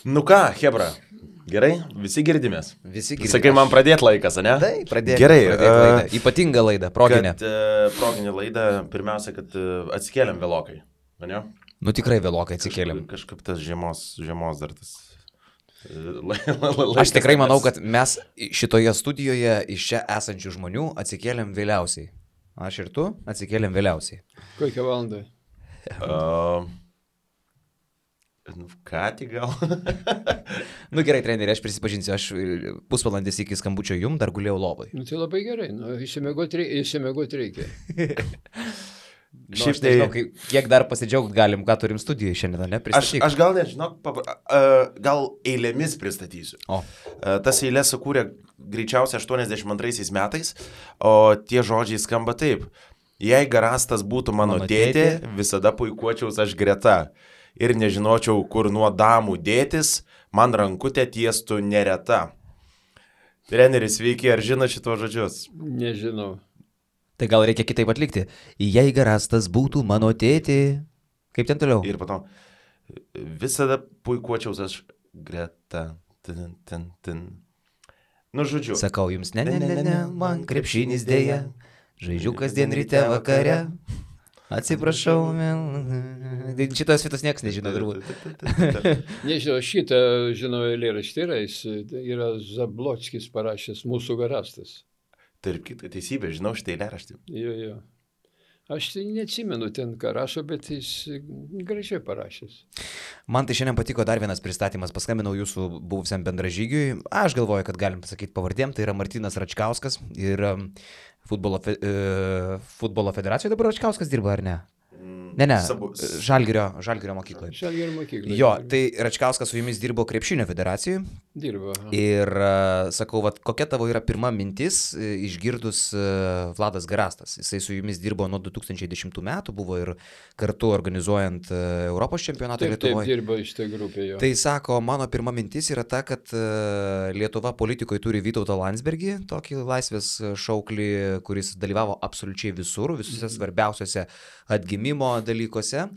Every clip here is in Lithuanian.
Nu ką, Hebra, gerai, visi girdimės. Visi girdimės. Sakai, man pradėti laikas, ne? Taip, pradėti. Gerai. Laidą. Ypatinga laida, proginė. Proginė laida, pirmiausia, kad atsikėlėm vėlokai, ne? Nu tikrai vėlokai atsikėlėm. Kažkaip tas žiemos dar tas... Aš tikrai manau, kad mes šitoje studijoje iš čia esančių žmonių atsikėlėm vėliausiai. Aš ir tu atsikėlėm vėliausiai. Kokią valandą? Ką tik gal? Nu gerai, treneri, aš prisipažinsiu, aš pusvalandis iki skambučio jum dar gulėjau lovai. Nu tai labai gerai, išsimiegot reikia. Šiaip tai, nežinau, kiek dar pasidžiaugt galim, ką turim studijoje šiandien, ne? Aš gal nežinau, gal eilėmis pristatysiu. Tas eilės sukūrė greičiausiai 82 metais, o tie žodžiai skamba taip. Jei Garastas būtų mano tėtė, visada puikuočiaus aš greta. Ir nežinočiau, kur nuo damų dėtis, man rankutė tiestų nereta. Treneris, sveiki, ar žino šito žodžius? Nežinau. Tai gal reikia kitaip atlikti. Jei Garastas būtų mano tėtė. Kaip ten toliau? Ir po to, visada puikuočiaus aš greta. Nu, žodžiu. Sakau jums, ne, man krepšinis dėja. Žaidžiu kasdien ryte vakare. Atsiprašau, šitos vietos niekas nežino, turbūt. Nežinau, šitą žinau eilėraštį yra Zablockis parašęs Mūsų Garastas. Tarp kitą teisybę, žinau šitą eilėraštį. Jo. Aš tai neatsimenu ten, ką rašo, bet jis gražiai parašęs. Man tai šiandien patiko dar vienas pristatymas. Paskambinau jūsų buvusiam bendražygiui. Aš galvoju, kad galim pasakyti pavardėm. Tai yra Martynas Račkauskas ir futbolo federacijoje dabar Račkauskas dirba, ar ne? Ne, Žalgirio mokykloje. Žalgirio mokykloje. Jo, tai Račkauskas su jumis dirbo krepšinio federacijoje. Dirbo. Ir sakau, kokia tavo yra pirma mintis išgirdus Vladas Garastas. Jisai su jumis dirbo nuo 2010 metų, buvo ir kartu organizuojant Europos čempionatą Lietuvoje. Taip, dirbo iš tai grupė jo. Tai sako, mano pirma mintis yra ta, kad Lietuva politikoje turi Vytautą Landsbergį, tokį laisvės šauklį, kuris dalyvavo absoliučiai visur, visose svarbiausiose atgimimo dalykuose.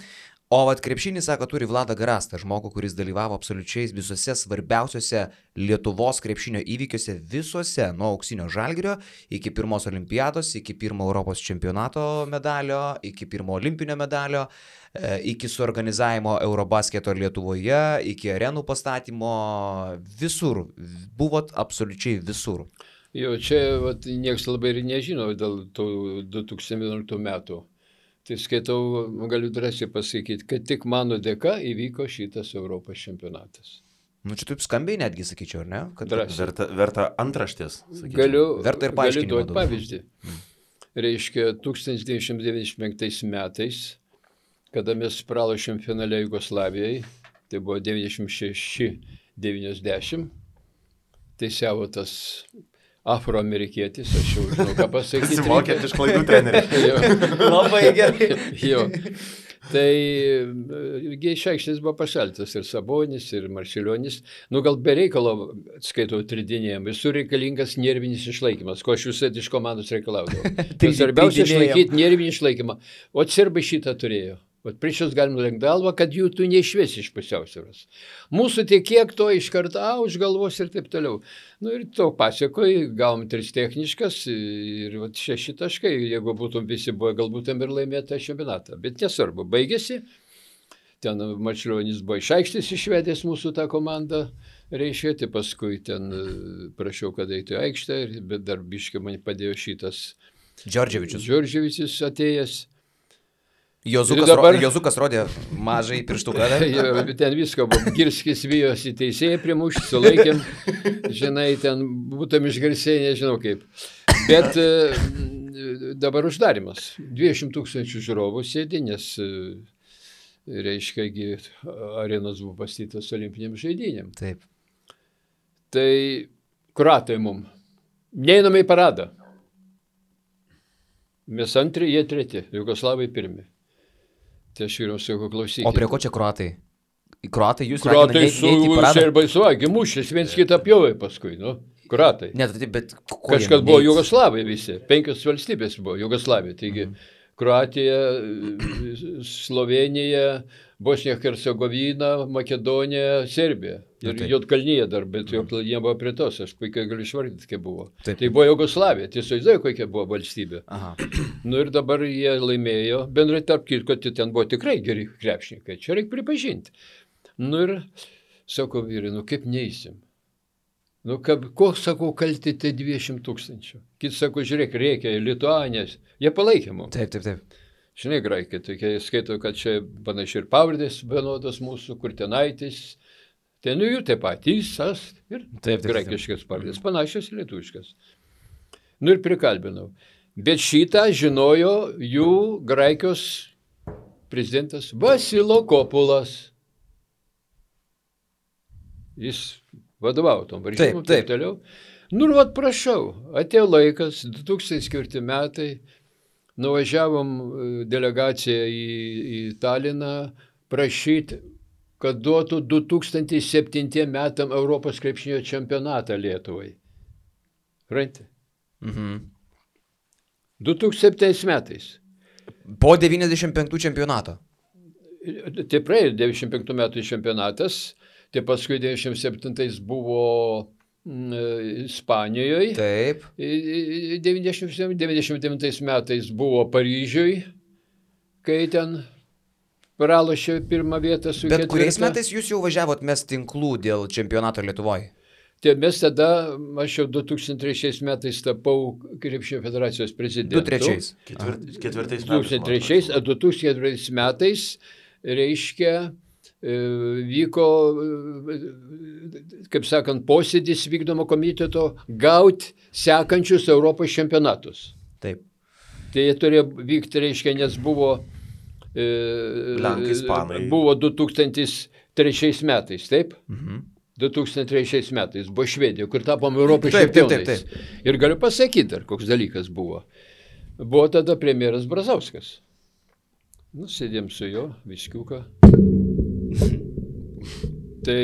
O krepšinį, sako, turi Vladą Garastą, žmogų, kuris dalyvavo absoliučiai visose svarbiausiose Lietuvos krepšinio įvykiuose, visose, nuo auksinio Žalgirio iki pirmos olimpiados, iki pirmo Europos čempionato medalio, iki pirmo olimpinio medalio, iki suorganizavimo Eurobasketo Lietuvoje, iki arenų pastatymo, visur, buvot absoliučiai visur. Jo, čia niekas labai ir nežino dėl tų 2011 metų. Tai skaitau, galiu drąsiai pasakyti, kad tik mano dėka įvyko šitas Europos čempionatas. Nu, čia taip skambiai netgi, sakyčiau, ar ne? Kad verta antraštės. Verta ir paaiškinimo. Galiu duoti pavyzdį. Reiškia, 1995 metais, kada mes pralošėm finale Jugoslavijai, tai buvo 96-90, teisiavo tas afroamerikietis, aš jau žinau, ką pasakyti. Pasimokėt iš klaidų trenerių. Labai gerai. Jo. Tai iš aikštės buvo pašaltas ir Sabonis, ir Marčiulionis. Nu, gal be reikalo, skaitau, tridinėjom. Visur reikalingas nervinis išlaikymas, ko aš visai iš komandos reikalaudavau. Tai svarbiausia išlaikyti nervinį išlaikymą. O serbai šitą turėjo. Prieš jūs galim nulenkti galvą, kad jų tu neišvesi iš pusiausvyros. Mūsų tik kiek to iš karto už galvos ir taip toliau. Nu ir to pasiekoje gavom 3 techniškas ir 6 taškai. Jeigu būtum visi buvo, galbūt ir laimėta čempionatą. Bet nesvarbu, baigėsi. Ten Marčiulionis buvo iš aikštės išvedęs mūsų tą komandą. Reiškia, tai paskui ten prašiau, kad eitų į aikštę, bet dar biškai man padėjo šitas Džordževičius atėjęs. Jozukas rodė mažai pirštuką. Ten visko buvo. Girskis vijosi teisėjai primušti, sulaikėm. Žinai, ten būtum išgarsėjai, nežinau kaip. Bet dabar uždarimas. 200 000 žiūrovų sėdi, nes, reiškia, arenos buvo pastatytos olimpinėm žaidynėm. Taip. Tai kroatai mum. Neiname į paradą. Mes antri, jie treti. Jugoslavai pirmi. Tai aš vyriau sakau, klausykit. O prie ko čia kroatai? Kroatai jūs raginate neiti į paradą? Serbai suvalgė, mušės, viens kitą pjovė paskui, nu. Kroatai. Ne, bet kažkas buvo Jugoslavai visi. 5 valstybės buvo Jugoslavija. Taigi Kroatija, Slovenija, Bosnija, Hercegovina, Makedonija, Serbija. Ir Juodkalnyje dar, bet Juodkalnyje buvo prie tos, aš puikiai galiu išvardyti, kaip buvo. Taip. Tai buvo Jugoslavija, tiesiog žinai, kokia buvo valstybė. Aha. Nu ir dabar jie laimėjo, bendrai tarp kitko, ten buvo tikrai geri krepšininkai, čia reikia pripažinti. Nu ir sako vyrai, nu kaip neįsim? Nu, koks, sakau, kalti tie 200 000. Kits sako, žiūrėk, reikia, Lituanės. Jie palaikė mums. Taip. Žinai, graikai, tokie skaito, kad čia panašiai ir pavardės vienodos mūsų, Kurtinaitis. Ten jų taip pat, Įsas ir graikiškas pavardės, panašios lietuviškas. Nu ir prikalbinau. Bet šitą žinojo jų Graikijos prezidentas Vasilo Kopulas. Jis vadovavo tom varžymom, taip toliau. Nu ir vat prašau, atėjo laikas, 2004 metai, nuvažiavom delegaciją į Taliną prašyti, kad duotų 2007 metam Europos krepšinio čempionatą Lietuvai. Ranti? 2007 metais. Po 95 čempionato. Tai praėjo 95 metų čempionatas. Tai paskui 97 buvo Ispanijoje. Taip. 99 metais buvo Paryžiui, kai ten pralošė pirmą vietą su Bet ketvirta. kuriais metais jūs jau važiavot mes tinklų dėl čempionato Lietuvoje? Tai mes tada, aš jau 2003 metais tapau Krepšinio federacijos prezidentu. 2003 metais. 2004 metais, reiškia, vyko, kaip sakant, posėdis vykdomo komiteto gauti sekančius Europos čempionatus. Taip. Tai jie turėjo vykti, reiškia, nes buvo Lenkai, Ispanai. Buvo 2003 metais, taip? 2003 metais buvo Švedija, kur tapom Europos čempionais. Ir galiu pasakyti dar, koks dalykas buvo. Buvo tada premjeras Brazauskas. Nu, sėdėm su jo, viskiuką. Tai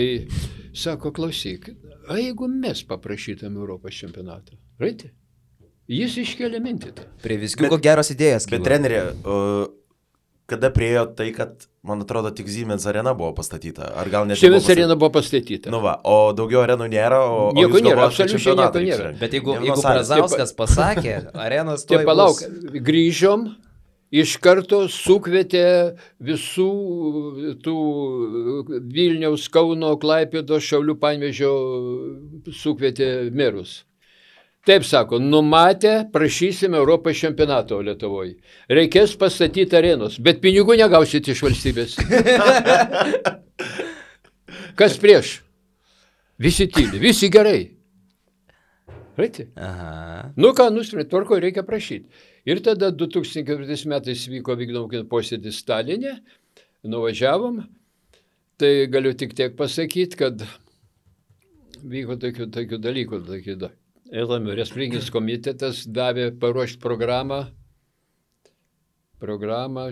sako, klausyk, a jeigu mes paprašytam Europos čempionatą, raiti? Jis iškėlė mintį tą. Prie viskiuko geros idėjas. Bet trenerė, kada priejo tai, kad, man atrodo, tik Siemens arena buvo pastatyta? Ar gal net Siemens arena buvo pastatyta. Nu va, o daugiau arenų nėra, o nieko jūs nėra, galvojat, kad absoliučiai čempionatą nieko nėra. reiks Bet jeigu rengti? Brazauskas pasakė, arenos Tai tuoj palauk, bus. grįžom, iš karto sukvietė visų tų Vilniaus, Kauno, Klaipėdos, Šiaulių, Panevėžio sukvietė merus. Taip sako, numatę, prašysime Europos čempionato Lietuvoje. Reikės pastatyti arenos, bet pinigų negausite iš valstybės. Kas prieš? Visi tyli, visi gerai. Raiti? Aha. Nu ką, nusprendė, tvarko, reikia prašyti. Ir tada 2004 metais vyko vykdomų posėdis Stalinė, nuvažiavom, tai galiu tik tiek pasakyti, kad vyko tokių dalykų. Respublikinis komitetas davė paruošti programą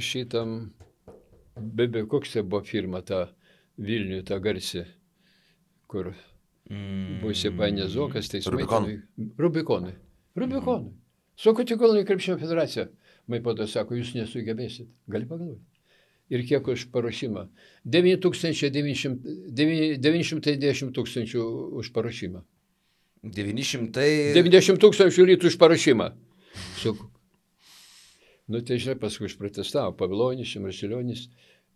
šitam, koks tai buvo firma, ta Vilniuje, ta garsi, kur buvo įsipainės Zokas, teismai. Rubikonai. Sako, tik Kauno krepšinio federacija. Maipodo sako, jūs nesugebėsit. Gali pagalvoti. Ir kiek už paruošimą? 910 000 už paruošimą. 90 000 litų už paruošimą. Sakau. Nu, tai žinai, paskui išprotestavo Pavilonis, Marsilionis.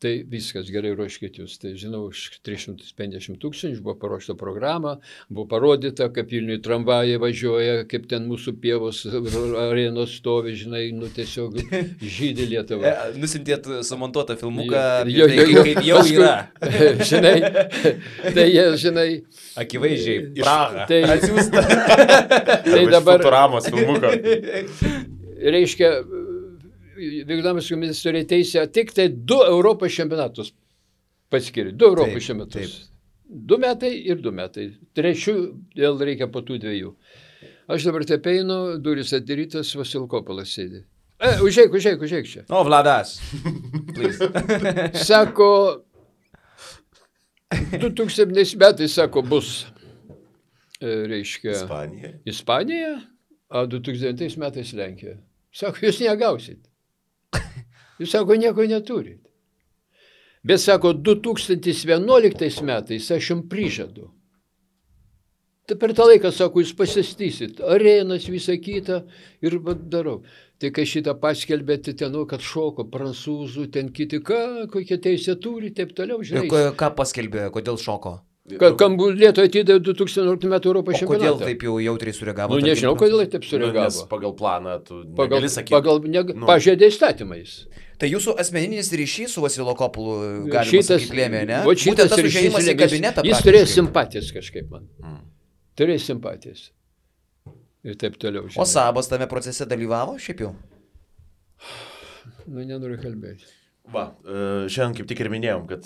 Tai viskas, gerai ruoškit jūs. Tai žinau, už 350 000 buvo paruošta programa, buvo parodyta, kaip Vilniuje tramvajai važiuoja, kaip ten mūsų pievos arenos stovi, žinai, nu tiesiog žydė Lietuvą. Nusintėt sumontuotą filmuką, kaip jau yra. Žinai, tai jie, žinai. Akivaizdžiai, Praha. Tai atsiųsta. Tai dabar. Futuramos filmuką. Reiškia, vykdomas komitetas turėjo teisę tik tai 2 Europos čempionatus paskiri. 2 Europos čempionatus. 2 metai ir 2 metai. 3 vėl reikia po tų 2. Aš dabar taip einu, duris atidarytas, Vasilkopolas sėdi. Užeik čia. O, Vladas. Sako, 2000 metais, sako, bus, reiškia, Ispanija, o 2009 metais Lenkija. Sako, jūs negausit. Jūs sako, nieko neturit. Bet sako, 2011 metais aš jums prižadu. Tai per tą laiką, sako, jūs pasistysit, arenas, visą kitą ir darau. Tai kai šitą paskelbėte ten, kad šoko prancūzų, ten kiti, kokie teisė turi, taip toliau, žinai. Ką paskelbė, kodėl šoko? Kam Lietuva atidavė 2011 metų Europos čempionatą. Kodėl taip jau jautriai sureagavo? Nežinau, kodėl taip sureagavo. Nes pagal planą tu negali sakyti. Pažeidė įstatymais. Tai jūsų asmeninis ryšys su Vasilo Kopulu galima sakyti lėmė, ne? Būtent tas užėjimas į kabinetą. Jis turėjo simpatijas kažkaip man. Turėjo simpatijas. Ir taip toliau. O Sabas tame procese dalyvavo šiaip jau? Nenoriu kalbėti. Va, šiandien kaip tik ir minėjom, kad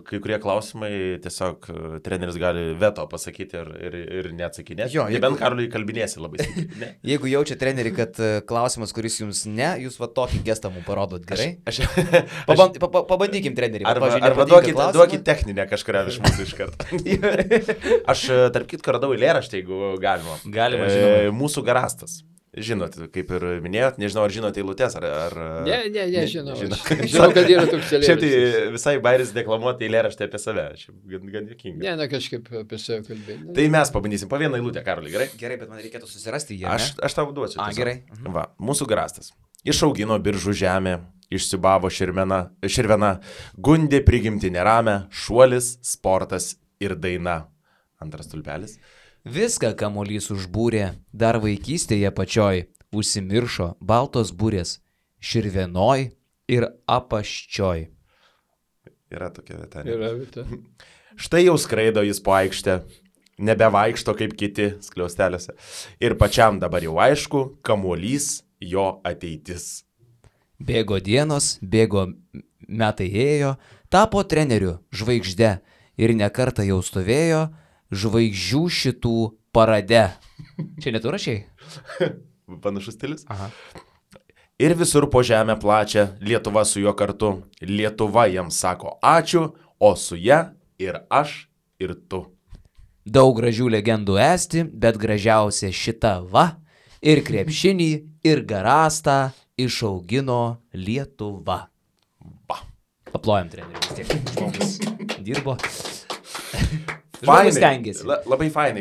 kai kurie klausimai tiesiog treneris gali veto pasakyti ir neatsakinėti. Jo, nebent Karoliui kalbinėsi labai stipriai. Jeigu jaučia treneri, kad klausimas, kuris jums ne, jūs va tokį gestą mums parodot gerai. Pabandykim treneri. Arba duokit techninę kažkurią iš mūsų iš karto. Aš tarp kitko radau eilėraštį, jeigu galima. Galima, žinoma. Mūsų garastas. Žinot, kaip ir minėjot, nežinau, ar žinote eilutes, ar... Ne, žinau. Žinau, kad yra toks eilėraštis. Šiaip tai visai bairis deklamuoti eilėraštį apie save. Gan juokinga. Ne, kažkaip apie save kalbėti. Tai mes pabandysim po vieną eilutę, Karoli, gerai? Gerai, bet man reikėtų susirasti jį. Aš tau duosiu. Gerai. Va, mūsų garastas. Išaugino biržų žemę, išsibavo širvena, gundė prigimti neramę, šuolis, sportas ir daina. Antras tulpelis. Viską kamuolys užbūrė, dar vaikystėje pačioj, užsimiršo baltos būrės, širvenoj ir apaščioj. Yra tokia vieta. Yra vieta. Štai jau skraido jis po aikštę, nebevaikšto kaip kiti skliausteliuose. Ir pačiam dabar jau aišku, kamuolys jo ateitis. Bėgo dienos, bėgo metai ėjo, tapo treneriu žvaigžde ir nekartą jau stovėjo žvaigždžių šitų parade. Čia netu rašiai? Panašus stilius? Aha. Ir visur po žemę plačia, Lietuva su juo kartu. Lietuva jam sako ačiū, o su ja ir aš, ir tu. Daug gražių legendų esti, bet gražiausia šita va. Ir krepšinį, ir garastą išaugino Lietuva. Va. Paplojam treneriui, vis tiek žmogus dirbo. Fainai, labai fainai.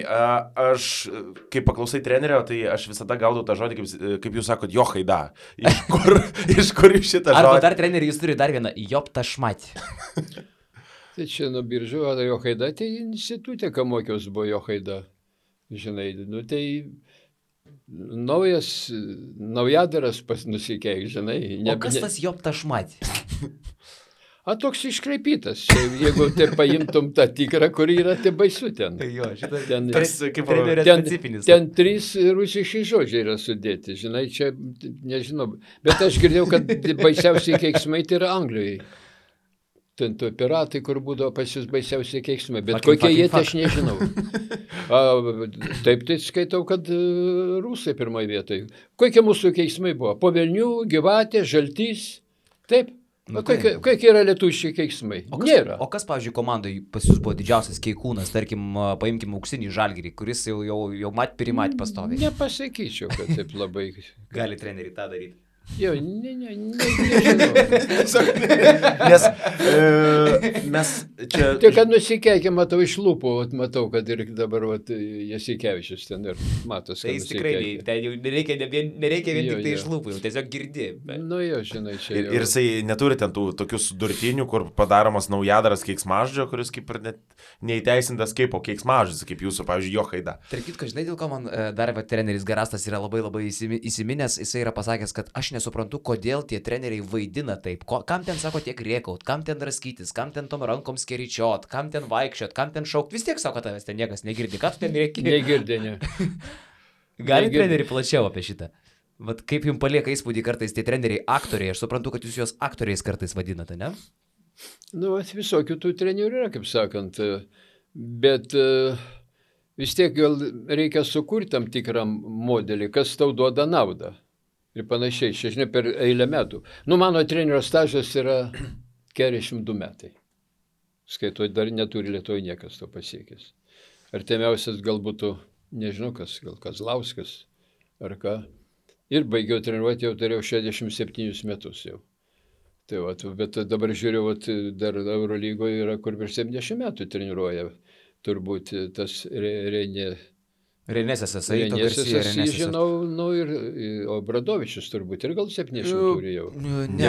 Aš, kai paklausai trenerio, tai aš visada gaudau tą žodį, kaip jūs sakot, johaida. Iš kur jūs šitą žodį? Arba dar treneri, jūs turi dar vieną, joptašmatį. Tai čia nuo biržų, johaida, tai institutė, ką mokiaus buvo johaida. Žinai, tai naujadaras nusikeik, žinai. O kas tas joptašmatį? Toks iškreipytas. Jeigu tai paimtum tą tikrą, kur yra, tai baisu ten. Jo, šitas kaip trenerio specifinis. Ten 3 rusiški žodžiai yra sudėti. Žinai, čia nežinau. Bet aš girdėjau, kad baisiausiai keiksmai tai yra Anglijoje. Ten to piratai, kur būdavo pas jūs baisiausiai keiksmai. Bet kokie jie, tai aš nežinau. Taip tai skaitau, kad rusai pirmoje vietoje. Kokie mūsų keiksmai buvo? Po Velnių, Gyvatė, Žaltys. Taip. Kokie yra lietuviški keiksmai? Nėra. O kas, pavyzdžiui, komandai pas jūs buvo didžiausias keikūnas, tarkim, paimkim Auksinį Žalgirį, kuris jau primat pastoviai? Nepasakyčiau, kad taip labai... Gali treneriai tą daryti. Jo, nežinau. Nes mes čia... Tik, kad nusikeikė, matau iš lūpų, matau, kad ir dabar Jasikevičius ten ir matos. Tai jis tikrai, nereikia vien tik tai iš lūpų, tiesiog girdi. Nu jo, žinai, čia ir jisai neturi ten tų tokius durtinių, kur padaromas naujadaras keiksmažodžio, kuris kaip ir net neįteisintas kaip o keiksmažodis, kaip jūsų, pavyzdžiui, johaida. Tarp kitko, žinai, dėl ko man dar treneris Garastas yra labai įsiminęs, jisai yra pasakęs, kad aš nesuprantu, kodėl tie treneriai vaidina taip. Kam ten sako tiek rėkaut, kam ten raskytis, kam ten tom rankom skeričiot, kam ten vaikščiot, kam ten šaukt. Vis tiek sako, tavęs ten niekas negirdi. Ką tu ten rėki? Negirdi, ne. Gali treneriai plačiau apie šitą. Vat kaip jums palieka įspūdį kartais tie treneriai aktoriai. Aš suprantu, kad jūs juos aktoriais kartais vadinate, ne? Nu, visokių tų trenerių yra, kaip sakant. Bet vis tiek gal reikia sukurti tam tikrą modelį, kas tau duoda naudą. Ir panašiai, žinai, per eilę metų. Nu, mano trenerio stažas yra 42 metai. Skaitau, dar neturi Lietuvoje niekas to pasiekęs. Artimiausias gal būtų, nežinau kas, gal Kazlauskas ar ką. Ir baigiau treniruoti, jau turėjau 67 metus jau. Tai va, bet dabar žiūriu, vat, dar Eurolygoje yra, kur virš 70 metų treniruoja, turbūt tas Renė. Renėsės esai, žinau, ir Obradovičius turbūt, ir gal 70 turi jau. Ne,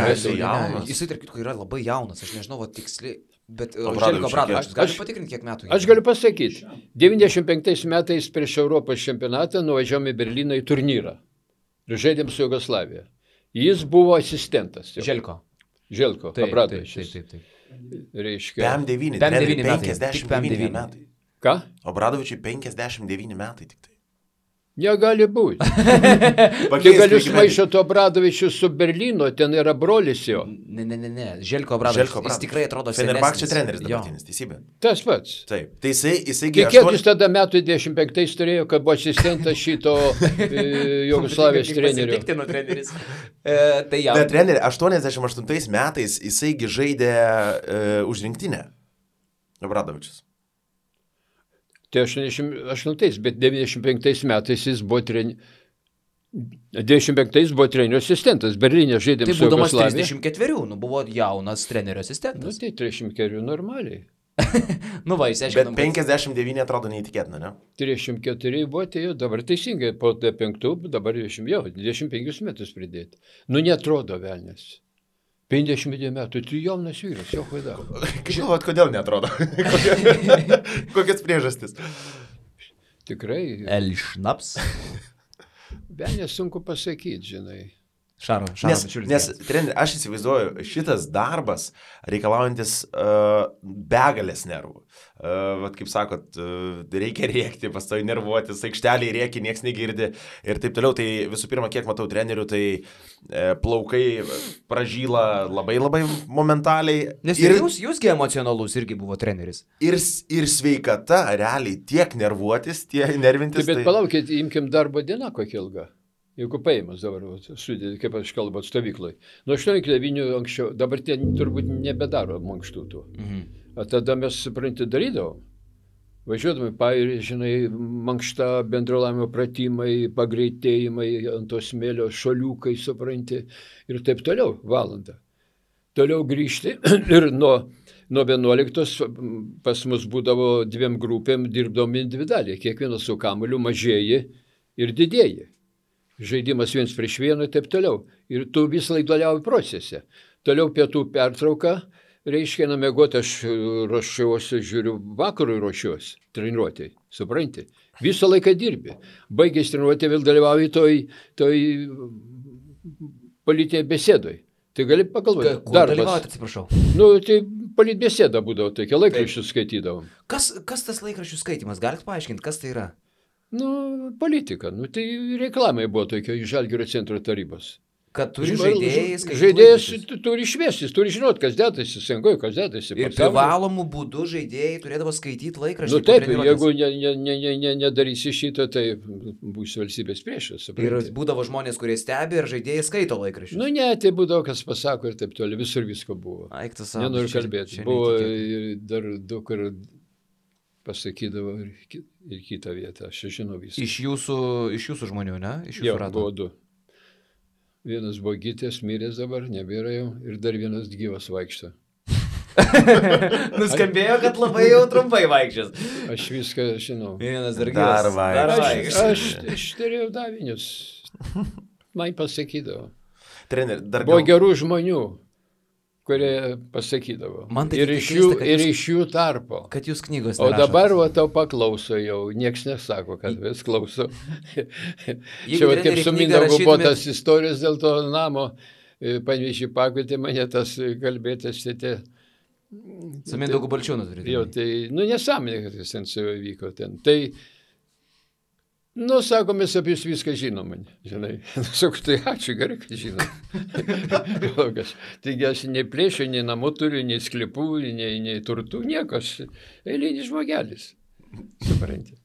jisai tarp kitko yra labai jaunas, aš nežinau, tiksliai, bet Željko Obradovičius, gali patikrinti, kiek metų? Aš galiu pasakyti, 95 metais prieš Europos čempionatą nuvažiavome į Berliną į turnyrą ir žaidėm su Jugoslavija. Jis buvo asistentas. Željko Obradovičius. Reiškia. PM9 metai. Ką? Obradovičiui 59 metai tik tai. Negali būti. Tai gali sumaišyti Obradovičius su Berlyno, ten yra brolis jo. Ne. Željko Obradovičius. Jis tikrai atrodo senesnis. Fenerbahčė treneris dabartinis, teisybė. Tas pats. Taip. Tai jisai kiek jis tada metų 25 turėjo, kad buvo asistentas šito Jugoslavijos trenerio. Bet trenerį 88 metais jisaigi žaidė už rinktinę. Obradovičius. Tai 88, bet 95 metais jis buvo 95 buvo trenerio asistentas. Berlyne žaidėm su Jugoslavija. Tai būdamas 34, buvo jaunas trenerio asistentas. Tai 34 normaliai. Jis aiškiai. Bet 59 atrodo neįtikėtina, ne? 34 buvo, tai jau dabar teisingai, po 5, dabar 25 metus pridėti. Netrodo velnės. 50 metų, tu jaunas vyras, jo klaida. Žinot, kodėl netrodo? Kokias priežastis? Tikrai. Elšnaps. Velnės sunku pasakyti, žinai. Nes treneri, aš įsivaizduoju, šitas darbas reikalaujantis begalės nervų. Vat kaip sakot, reikia rėkti, pastovi nervuotis, aikšteliai rėki, nieks negirdi ir taip toliau. Tai visų pirma, kiek matau trenerių, tai plaukai pražyla labai momentaliai. Nes jūsgi emocionalus irgi buvo treneris. Ir sveikata, realiai, tiek nervuotis, tiek nervintis. Bet palaukit, imkim darbo dieną kokia ilga. Jeigu paėmus dabar, sudėti, kaip aš kalbu, stovyklai. Nuo 8-9 anksčiau, dabar tie turbūt nebedaro mankštų tų. O tada mes, supranti, darydavom. Važiuodami pairį, žinai, mankšta, bendrolavimo pratimai, pagreitėjimai, ant to smėlio šoliukai, supranti, ir taip toliau, valandą. Toliau grįžti ir nuo 11 pas mus būdavo 2 grupėm, dirbdom individualiai, kiekvienas su kamuoliu mažėji ir didėji. Žaidimas 1 prieš 1 ir taip toliau. Ir tu visą laiką dalyvauji procese. Toliau pietų pertrauka, reiškia, namiegoti aš ruošiuosi, žiūriu, vakarui ruošiuosi, treniruotėjai, supranti. Visą laiką dirbi. Baigęs treniruotė vėl dalyvauji toj politinėje besėdoj. Tai gali pagalvoti. Kur dalyvauti, atsiprašau? Tai politbesėda būdavo, tokia laikraščių skaitydavom. Kas tas laikraščių skaitimas? Galite paaiškinti, kas tai yra? Politika. Tai reklamai buvo tokia iš Žalgirio centro tarybos. Kad turi žaidėjai skaityti. Žaidėjas turi šviestis, turi žinot, kas dėtasi, sengoje, kas dėtasi. Ir privalomų būdų žaidėjai turėdavo skaityti laikraštį. Taip, jeigu nedarysi šitą, tai būsi valstybės priešas. Ir būdavo žmonės, kurie stebi ir žaidėjai skaito laikraštį. Tai būdavo, kas pasako ir taip toliau, visur visko buvo. Nenoriu kalbėti. Buvo dar daug kur pasakydavo ir kitą vietą, aš žinau viską. Iš jūsų žmonių, ne? Iš jūsų rato? Buvo 2. Vienas buvo gytės, miręs dabar, nebėra jau, ir dar vienas gyvas vaikšto. Nuskambėjo, kad labai jau trumpai vaikščias. Aš viską žinau. Vienas dar gyvas. Aš turėjau davinius. Man pasakydavo. Treneri, dar buvo gerų žmonių, kurie pasakydavo. Ir iš jų tarpo. Kad jūs knygos nerašot. O dabar tau paklauso jau, nieks nesako, kad vis klauso. Čia kaip su Mindaugu buvo tas istorijos dėl to namo, Panevėžį pakvietė mane tas kalbėtas tėtė. Su Mindaugu Balčiūnu turėtų. Jo, tai, nesąmonė, kad jis ten su juo vyko ten. Tai, sako, mes apie jūs viską žinom, žinai. Sakau, tai ačiū, gerai, kad žinom. Taigi aš nei plėšiu, nei namų turiu, nei sklypų, nei turtų, nieko, aš eilinis žmogelis. Supranti.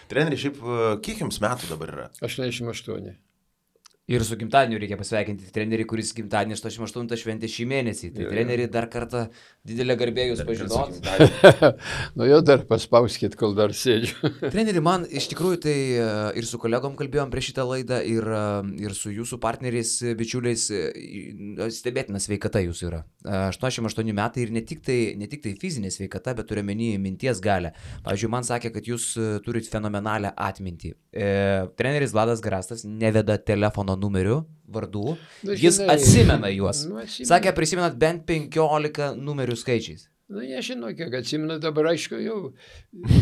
Treneri, šiaip kiek jums metų dabar yra? 88. Ir su gimtadieniu reikia pasveikinti trenerį, kuris gimtadienį 88 šventė šį mėnesį. Tai trenerį dar kartą didelę garbę jūs pažinot. Nu jau dar paspauskit, kol dar sėdžiu. Treneri, man iš tikrųjų tai ir su kolegom kalbėjom prieš šitą laidą ir su jūsų partneriais, bičiuliais, stebėtina sveikata jūsų yra. 88 metai ir ne tik tai fizinė sveikata, bet turiu menį minties galę. Pavyzdžiui, man sakė, kad jūs turit fenomenalią atmintį. Treneris Vladas Garastas neveda telefono numerių, vardų, jis atsimena juos. Sakė, prisimenat bent 15 numerių skaičiais. Na, nežinau, kiek atsimenu, dabar aišku, jau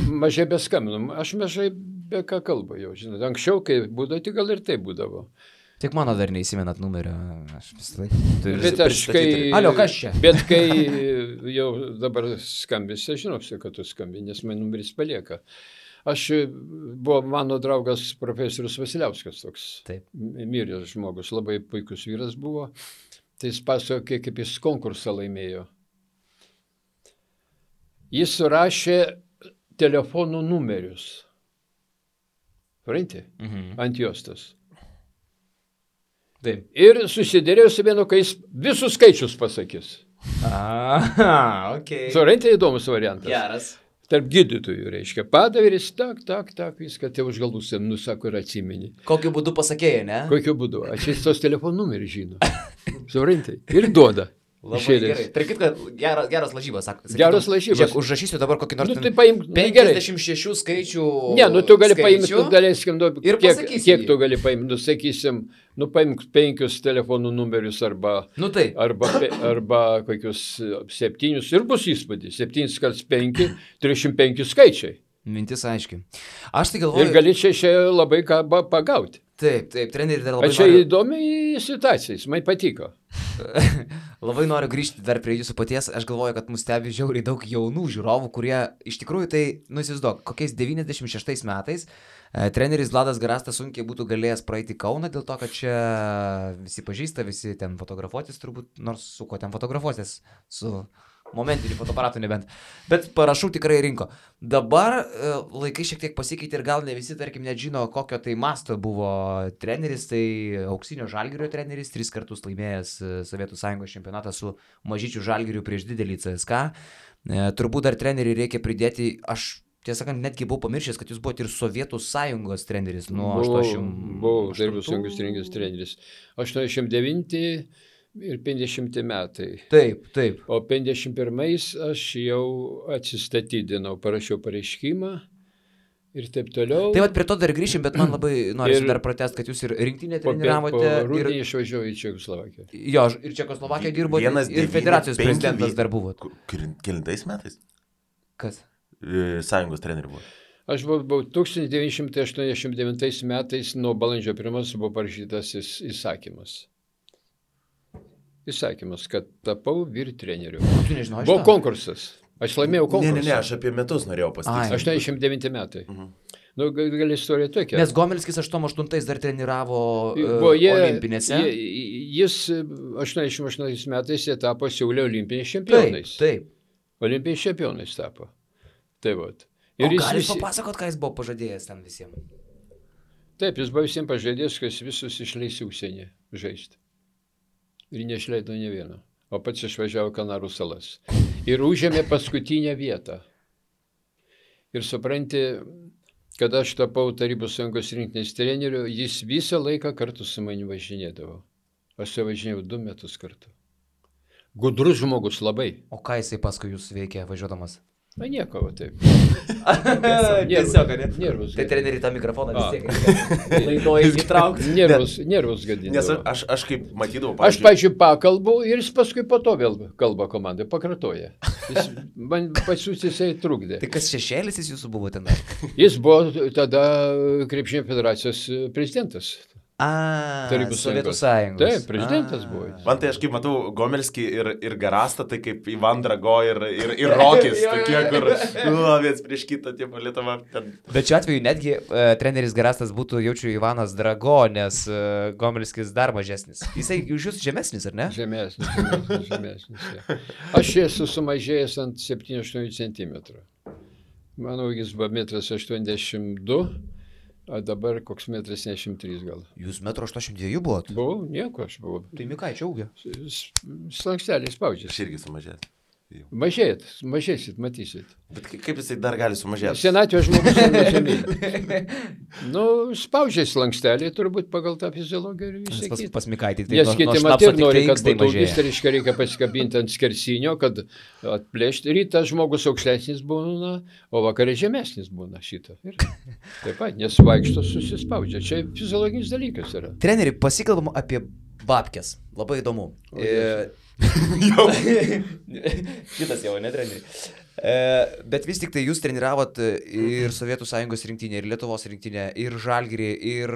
mažai beskambinu. Aš mažai be ką kalbu jau, žinot. Anksčiau, kai būdavo, tai gal ir tai būdavo. Tik mano dar neįsimenat numerio. Aš visai. Bet aš kai... Alio, kas čia? Bet kai jau dabar skambisi, aš žinau, kad tu skambi, nes man numeris palieka. Buvo mano draugas profesorius Vasiliauskas toks. Taip. Miręs žmogus, labai puikus vyras buvo. Tai jis pasakė, kaip jis konkursą laimėjo. Jis surašė telefonų numerius. Supranti? Ant juostos. Taip. Ir susidėrėjo su vienu, kai jis visus skaičius pasakys. Okay. Supranti, įdomus variantas. Geras. Tarp gydytojų, reiškia, padaviris, tak, viską, tai už galus, nusako ir atsimeni. Kokiu būdu pasakėjai, ne? Kokiu būdu? Aš jis tos telefonų numerį žino. Supranti? Ir duoda. Labai gerai. Tai kaip, kad geras lažybas, sako. Geras lažybas. Žiūrėk, užrašysiu dabar kokį nors... Nu, tai paimk, 56 skaičių... Ne, nu tu gali paimti, daleiskim, ir kiek tu gali paimti, nu sakysim, nu paimk 5 telefonų numerius arba... Nu tai. Arba kokius 7 ir bus įspūdis. 7 x 5, 305 skaičiai. Mintis aiškiai. Aš tai galvoju... Ir gali čia labai ką pagauti. Taip, treneri dar labai noriu... Čia įdomi situacija, jis man patiko. Labai noriu grįžti dar prie jūsų paties. Aš galvoju, kad mus stebi žiauriai daug jaunų žiūrovų, kurie iš tikrųjų tai, įsivaizduok, kokiais 96 metais treneris Vladas Garastas sunkiai būtų galėjęs praeiti Kauną, dėl to, kad čia visi pažįsta, visi ten fotografuotis turbūt, nors su ko ten fotografuotis, su... Momentinių fotoaparatų nebent. Bet parašų tikrai rinko. Dabar laikai šiek tiek pasikeitė ir gal ne visi, tarkim, net žino, kokio tai masto buvo treneris. Tai auksinio Žalgirio treneris, 3 kartus laimėjęs Sovietų Sąjungos čempionatą su mažyčiu Žalgiriu prieš didelį CSKA. Turbūt dar treneriui reikia pridėti, aš tiesą sakant, netgi buvau pamiršęs, kad jūs buvote ir Sovietų Sąjungos treneris. Buvau Sovietų Sąjungos treneris. 89 ir 50 metai. Taip. O 51 aš jau atsistatydinau, parašiau pareiškimą ir taip toliau. Tai vat prie to dar grįšim, bet man labai norisi dar pratęsti, kad jūs ir rinktinę treniravote. Po rudenį išvažiavau į Čekoslovakiją. Jo, ir Čekoslovakiją dirbote, ir federacijos prezidentas dar buvot. Kelintais metais? Kas? Sąjungos trenerių buvo. Aš buvau 1989 metais, nuo balandžio 1 buvo parašytas įsakymas. Kad tapau vyr treneriu. Tu nežinau, buvo konkursas. Aš laimėjau konkursą. Ne, aš apie metus norėjau pasakyti. 89 metai. Nu, gal istorija tokia. Nes Gomelskis 88 dar treniravo olimpinėse. Jis 88 metais jie tapo Seule olimpiniais čempionais. Taip. Olimpiniais čempionais tapo. Tai vat. Ir gal jūs papasakot, ką jis buvo pažadėjęs ten visiems? Taip, jis buvo visiems pažadėjęs, kad jis visus išleis į užsienį žaisti. Ir neišleido ne vieno. O pats išvažiavo Kanarų salas. Ir užėmė paskutinę vietą. Ir supranti, kad aš tapau Tarybų Sąjungos rinktinės treneriu, jis visą laiką kartu su manimi važinėdavo. Aš su važinėjau 2 metus kartu. Gudrus žmogus labai. O ką jisai paskui jūs veikė važiuodamas? Na nieko, taip. Tiesiog, ne? Nervus. Tai treneri tą mikrofoną vis tiek laidoje įtraukti. Nervus gadinti. Nes aš kaip matydavau, aš, pavyzdžiui, pakalbu ir jis paskui po to vėl kalba komandai, pakartoja. Man pasiūs jisai trukdė. Tai kas šešėlis jis jūsų buvo ten? Jis buvo tada Krepšinio federacijos prezidentas. Sovietų Sąjungos. Taip, prezidentas buvo. Man tai aš kaip matau Gomelskį ir Garastą, tai kaip Ivan Drago ir Rokis, tokie, kur viens prieš kitą, tie Lietuva. Bet šiuo atveju netgi treneris Garastas būtų, jaučiu, Ivanas Drago, nes Gomelskis dar mažesnis. Jisai už jūs žemesnis, ar ne? Žemesnis. Aš esu sumažėjęs ant 7-8 cm. Manau, jis buvo 1,82 m. O dabar koks 1,73 m gal. Jūs 1,82 m buvot? Buvau, nieko aš buvau. Tai Mikaičio ūgio. Slanksteliai spaudžiasi. Aš irgi sumažėt. Mažėsit, matysit. Bet kaip jisai dar gali sumažėti? Senatvės žmogus nežemė. Nu, spaudžiasi slanksteliai, turbūt pagal tą fiziologiją ir visą kitą. Pas Mikaitį. Nes kiti matė, nori, kad būtų augis, tai reikia pasikabinti ant skersinio, kad atplėšti. Rytą žmogus aukštesnis būna, o vakarė žemesnis būna šitą. Ir taip pat, nes vaikšto susispaudžia. Čia fiziologinis dalykas yra. Treneri, pasikalbam apie babkes. Labai įdomu. Šitas jau, ne treneri. Bet vis tik tai jūs treniravot ir Sovietų Sąjungos rinktinę, ir Lietuvos rinktinę, ir Žalgirį, ir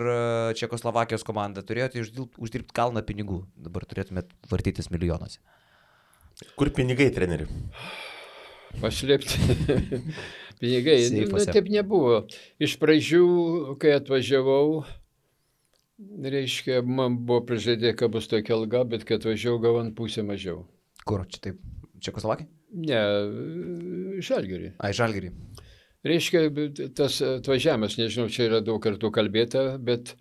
Čekoslovakijos komandą. Turėjote uždirbti kalną pinigų. Dabar turėtumėt vartytis milijonuose. Kur pinigai, treneri? Paslėpti. Pinigai. Taip nebuvo. Iš pradžių, kai atvažiavau, reiškia, man buvo prižadė, kad bus tokia alga, bet kai atvažiavau, gavant pusę mažiau. Kur? Čia taip? Čekoslovakija? Ne, Žalgirį. Ai, Žalgirį. Reiškia, tas atvažiavimas, nežinau, čia yra daug kartų kalbėta, bet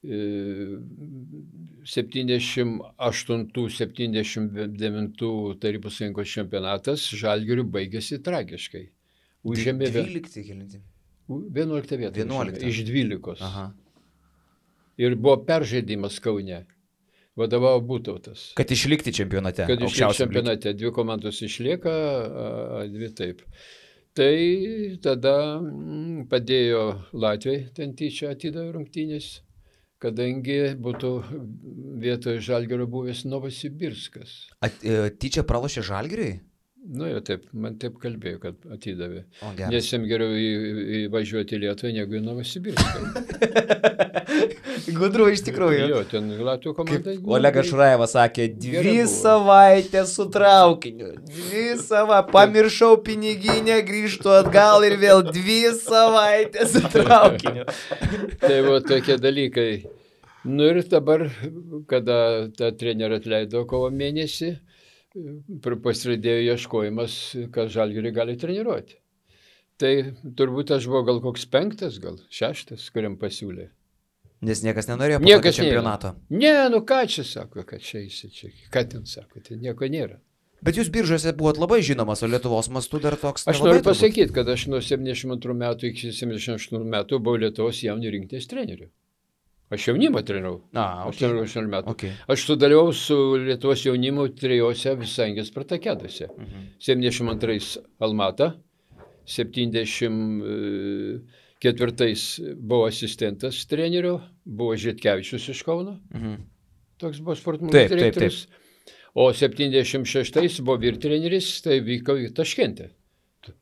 78-79 Tarybų Sąjungos čempionatas Žalgiriu baigėsi tragiškai. Užėmė 11 vietą. 11. Iš 12. Aha. Ir buvo peržaidimas Kaune. Vadovavo Būtautas. Kad išlikti čempionate. Kad išlikti čempionate. 2 komandos išlieka, 2 taip. Tai tada padėjo Latvijai, ten tyčia atidavė rungtynės, kadangi būtų vietoje Žalgirio buvęs Novosibirskas. Tyčia pralošė Žalgiriui? Nu jau taip, man taip kalbėjo, kad atidavė. O, nes jam geriau įvažiuoti į Lietuvą negu į Novosibirską. Gudru iš tikrųjų. Jo, ten Latvijos komanda. Olegas Šurajevas sakė, 2 savaitės su traukiniu. 2 savaitės. Pamiršau piniginę, grįžtu atgal ir vėl 2 savaitės su traukiniu. Tai buvo tokie dalykai. Nu ir dabar, kada tą trenerį atleido kovo mėnesį, pasiradėjo ieškojimas, kad Žalgirį gali treniruoti. Tai turbūt aš buvau gal koks 5, gal 6, kuriam pasiūlė. Nes niekas nenorėjo po čempionato. Ne, nu ką čia sako, kad čia eisi čia. Ką ten sako, tai nieko nėra. Bet jūs Biržuose buvot labai žinomas, o Lietuvos mastu dar toks. Aš noriu pasakyti, kad aš nuo 72 metų iki 78 metų buvau Lietuvos jaunių rinktinės treneriu. Aš jaunimą trenirau. Aš trenirau 18 metų. Okay. Aš sudalyvau su Lietuvos jaunimu 3 Visangės Spartakiadose. 72 Almata, 74 buvo asistentas trenerio, buvo Žitkevičius iš Kauno. Toks buvo sportmūgų direktorius. O 76 buvo vyrtreneris, tai vyko į Taškentę.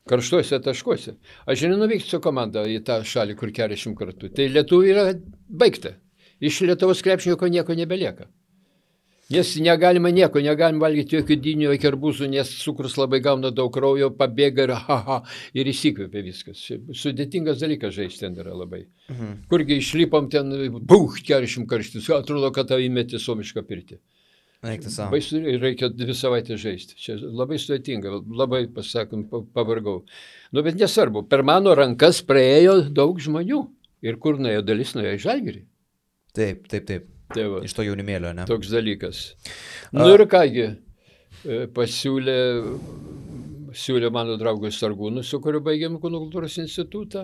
Karštuose taškuose. Aš nenuvykti su komanda į tą šalį, kur 40 kartų. Tai Lietuvai yra baigta. Iš Lietuvos krepšinio nieko nebelieka. Nes negalima valgyti jokių dynių, jokių arbūzų, nes cukrus labai gauna daug kraujo, pabėga ir įsikvėpia viskas. Sudėtingas dalykas žaisti ten yra labai. Kurgi išlipom ten, 40 karštis, atrodo, kad tau įmeti suomišką pirtį. Reikia 2 savaitės žaisti. Čia labai sudėtinga, labai, pasakom, pavargau. Nu, bet nesvarbu, per mano rankas praėjo daug žmonių. Ir kur nuėjo dalis, nuėjo į Žalgirį. Taip. Tai va, iš to jaunimėlio, ne? Toks dalykas. Nu ir kągi, siūlė mano draugui Sargūnui, su kuriuo baigėm Kūno kultūros institutą.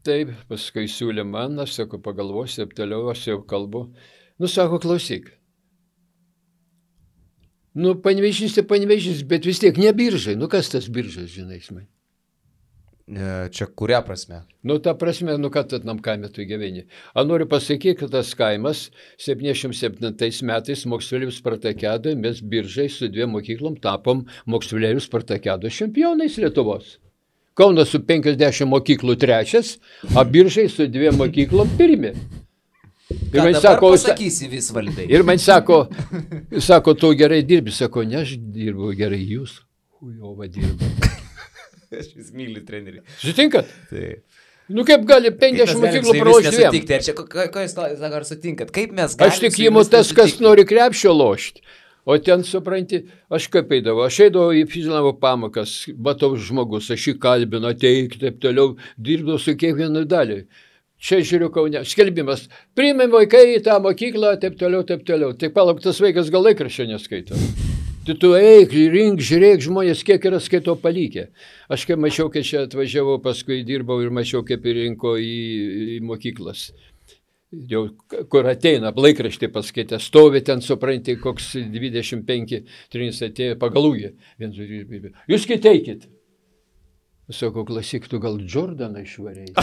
Taip, paskui siūlė man, aš sako, pagalvosiu, toliau aš jau kalbu. Nu, sako, klausyk. Nu, Panevėžys, bet vis tiek ne Biržai. Nu, kas tas Biržas, žinai, man? Čia kuria prasme? Nu, ta prasme, nu, kad tam kaime tu gyveni. A noriu pasakyti, kad tas kaimas 77 metais moksleivių Spartakiadoje mes Biržai su 2 mokyklom tapom moksleivių Spartakiados čempionais Lietuvos. Kaunas su 50 mokyklų 3, o Biržai su 2 mokyklom 1. Ir man sako, pasakysi vis valdai. Ir man sako, tu gerai dirbi, sako, ne, aš dirbu gerai, jūs, hujova dirbu. Aš vis myliu trenerį. Sutinkat? Taip. Nu kaip gali 50 mokyklų pralošti 2? Ką jūs ar sutinkat? Kaip mes galime? Aš tik įimu tas, kas nori krepšio lošti. O ten, supranti, aš kaip eidavau. Aš eidavau į fizinavo pamokas, matau žmogus, aš jį kalbinu, ateik, taip toliau, dirbdavau su kiekvienu dalį. Čia žiūriu Kaune, skelbimas, priimėm vaikai į tą mokyklą, taip toliau. Tai palauk, tas vaikas gal laikraščio neskaito. Tai tu eik, rink, žiūrėk, žmonės kiek yra skaito palikę. Aš kai mačiau, kai čia atvažiavau, paskui dirbau ir mačiau, kaip rinko į mokyklas. Jau kur ateina, laikraštį paskaitė, stovi ten, supranti, koks 25-3 atėjo pagalūgė. Jūs kiteikit. Sako, klausyk, tu gal Jordaną išvarėjai?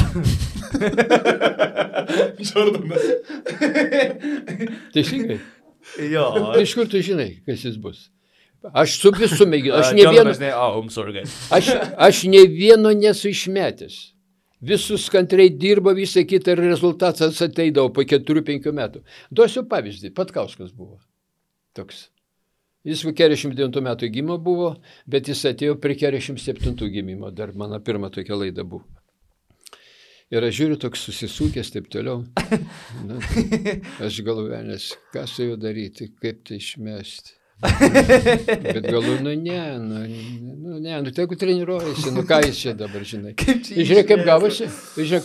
Jordanas. Teisingai. Jo. Iš kur tu žinai, kas jis bus? Aš su visų mėginu. Aš ne vieno nesu išmetęs. Visus kantriai dirbo, visą kitą ir rezultatas ateidavo po 4-5 metų. Duosiu pavyzdį, Patkauskas buvo toks. Jis 49 metų gimimo buvo, bet jis atėjo prie 47 gimimo, dar mano pirma tokia laida buvo. Ir aš žiūriu, toks susisūkęs, taip toliau. Na, aš galvoju, nes ką su juo daryti, kaip tai išmesti. Bet galvoju, ne, tegu treniruojasi, ką jis čia dabar, žinai. Žiūrėk,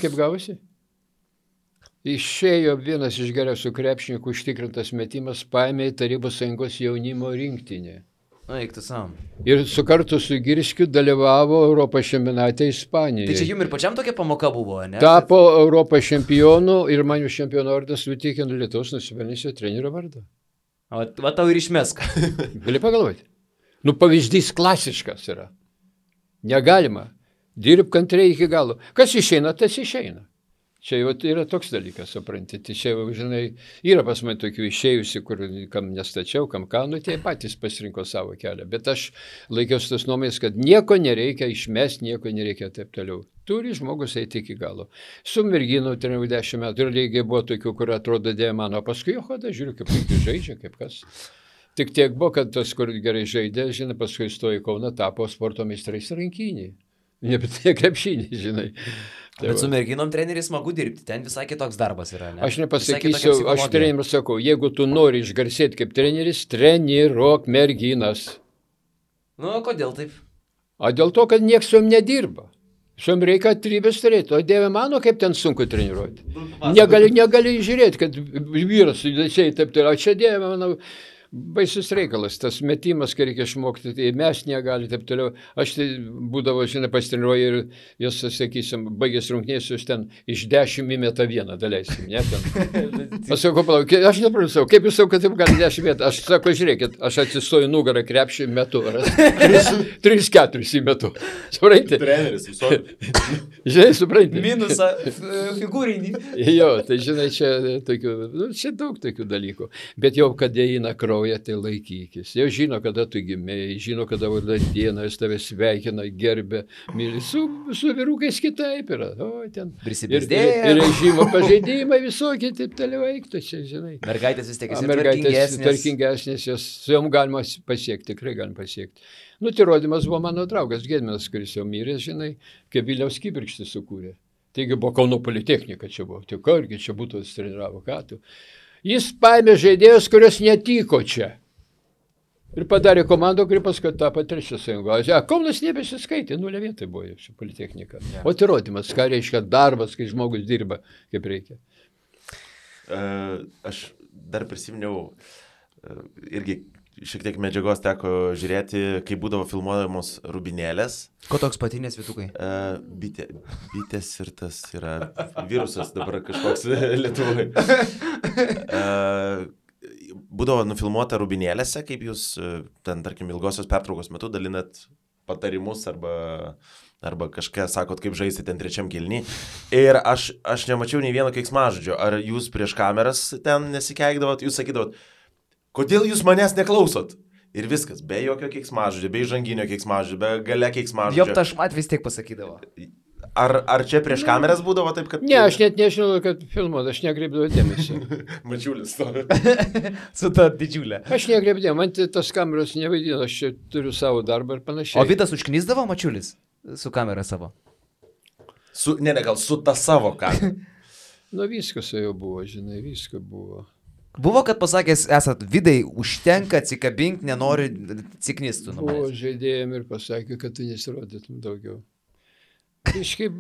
kaip gavosi. Išėjo vienas iš geriausių krepšininkų užtikrintas metimas, paėmė į Tarybų Sąjungos jaunimo rinktinę. Na, eik tu sam. Ir su kartu su Girskiu dalyvavo Europos čempionate Ispanijoje. Tai čia jums ir pačiam tokia pamoka buvo, ne? Tapo Europos čempionu ir man už čempiono vardą suteikė Lietuvos nusipelnusio trenerio vardą. Va tau ir išmesk. Gali pagalvoti. Pavyzdys klasiškas yra. Negalima. Dirb kantriai iki galo. Kas išeina, tas išeina. Čia jau yra toks dalykas, supranti. Čia jau, žinai, yra pas mane tokių išėjusi, kur kam nestačiau, kam ką, tie patys pasirinko savo kelią. Bet aš laikiausi tos nuomonės, kad nieko nereikia išmesti, nieko nereikia taip toliau. Turi žmogus eiti iki galo. Su merginu treniru 10 metų ir lygiai buvo tokių, kur atrodo dėjo mano, paskui jo hoda, žiūriu, kaip puikiai žaidžia, kaip kas. Tik tiek buvo, kad tas, kur gerai žaidė, žinai, paskui stojo į Kauną, tapo sporto meistrais rankinį. Ne krepšinį, žinai. Bet su merginom treneris smagu dirbti, ten visai kitoks darbas yra, ne? Aš nepasakysiu, aš treneriams sakau, jeigu tu nori išgarsėti kaip treneris, treniruok merginas. Nu, kodėl taip? O dėl to, kad nieks su jom nedirba. Su jom reikia atrybės turėti. O Dieve mano, kaip ten sunku treniruoti. Negali žiūrėti, kad vyras judesiai taip toliau. Čia Dieve mano... Baisus reikalas, tas metimas, kai reikia išmokti, tai mes negali, taip toliau. Aš tai būdavo, žinai, pasitreniruoju ir jos, sakysim, baigęs rungtynės, jūs ten iš 10 įmeta vieną, daleisim, ne? Aš sakau, palauk, aš neprasau, kaip jūs sakau, kad taip gali 10 metų? Aš sakau, žiūrėkit, aš atsistoju nugarą krepšį metu, 3-4 įmetu. Supranti? Treneris, visokių. Žinai, supranti? Minusą figūrinį. Jo, tai žinai, čia daug tokių dalykų. Bet jau, kad eina kraujas, tai laikykis. Jau žino, kada tu gimėjai, žino, kada vardą dieną, jis tave sveikina, gerbė, myli. Su vyrukais kitaip yra. O, ten. Prisibizdėja. Ir režimo pažeidimai visokie, taip toliau eiktų čia, žinai. Mergaitės vis tiek esi tvarkingesnės, su jom galima pasiekti, tikrai galima pasiekti. Tai rodymas buvo mano draugas Gedminas, kuris jau mirė, žinai, kaip Vilniaus kibirkštį sukūrė. Taigi buvo Kauno politechnika, čia buvo. Tik argi čia būtų treniravo, ką tu. Jis paėmė žaidėjus, kurios netiko čia. Ir padarė komandą, kuri paskui tapo 3 sąjungos. Kaunas nebesiskaitė, 0 vietai buvo ši politechnika. Ja. O tai rodymas, ką reiškia darbas, kai žmogus dirba, kaip reikia. Aš dar prisiminiau, irgi šiek tiek medžiagos teko žiūrėti, kai būdavo filmuojamos rubinėlės. Ko toks patinės vytukai? Bitės ir tas yra virusas dabar kažkoks Lietuvoje. Būdavo nufilmuota rubinėlėse, kaip jūs ten, tarkim, ilgosios pertraukos metu dalinat patarimus arba kažką sakot, kaip žaisti ten 3 kėlinį. Ir aš nemačiau nei vieno keiksmažodžio. Ar jūs prieš kameras ten nesikeikdavot, jūs sakydavot, kodėl jūs manęs neklausot? Ir viskas, be jokio keiksmažodžio, be įžanginio keiksmažodžio, be gale keiksmažodžio. Jop, tašmat vis tiek pasakydavo. Ar čia prieš kameras būdavo taip, kad... Ne, aš net nežinau, kad filmuot, aš nekreipdavau dėmesį. Mačiulis to. Su ta didžiulė. Aš nekreipdavau, man tas kameros nevaidino, aš čia turiu savo darbą ir panašiai. O Vitas užknisdavo Mačiulis su kamera savo? Gal su ta savo kamera. Viskas jau buvo, žinai, viskas buvo. Buvo, kad pasakęs, esat Vidai, užtenka, atsikabink, nenori ciknistų. Buvo žaidėjim ir pasakė, kad tu nesirodytum daugiau. Kažkaip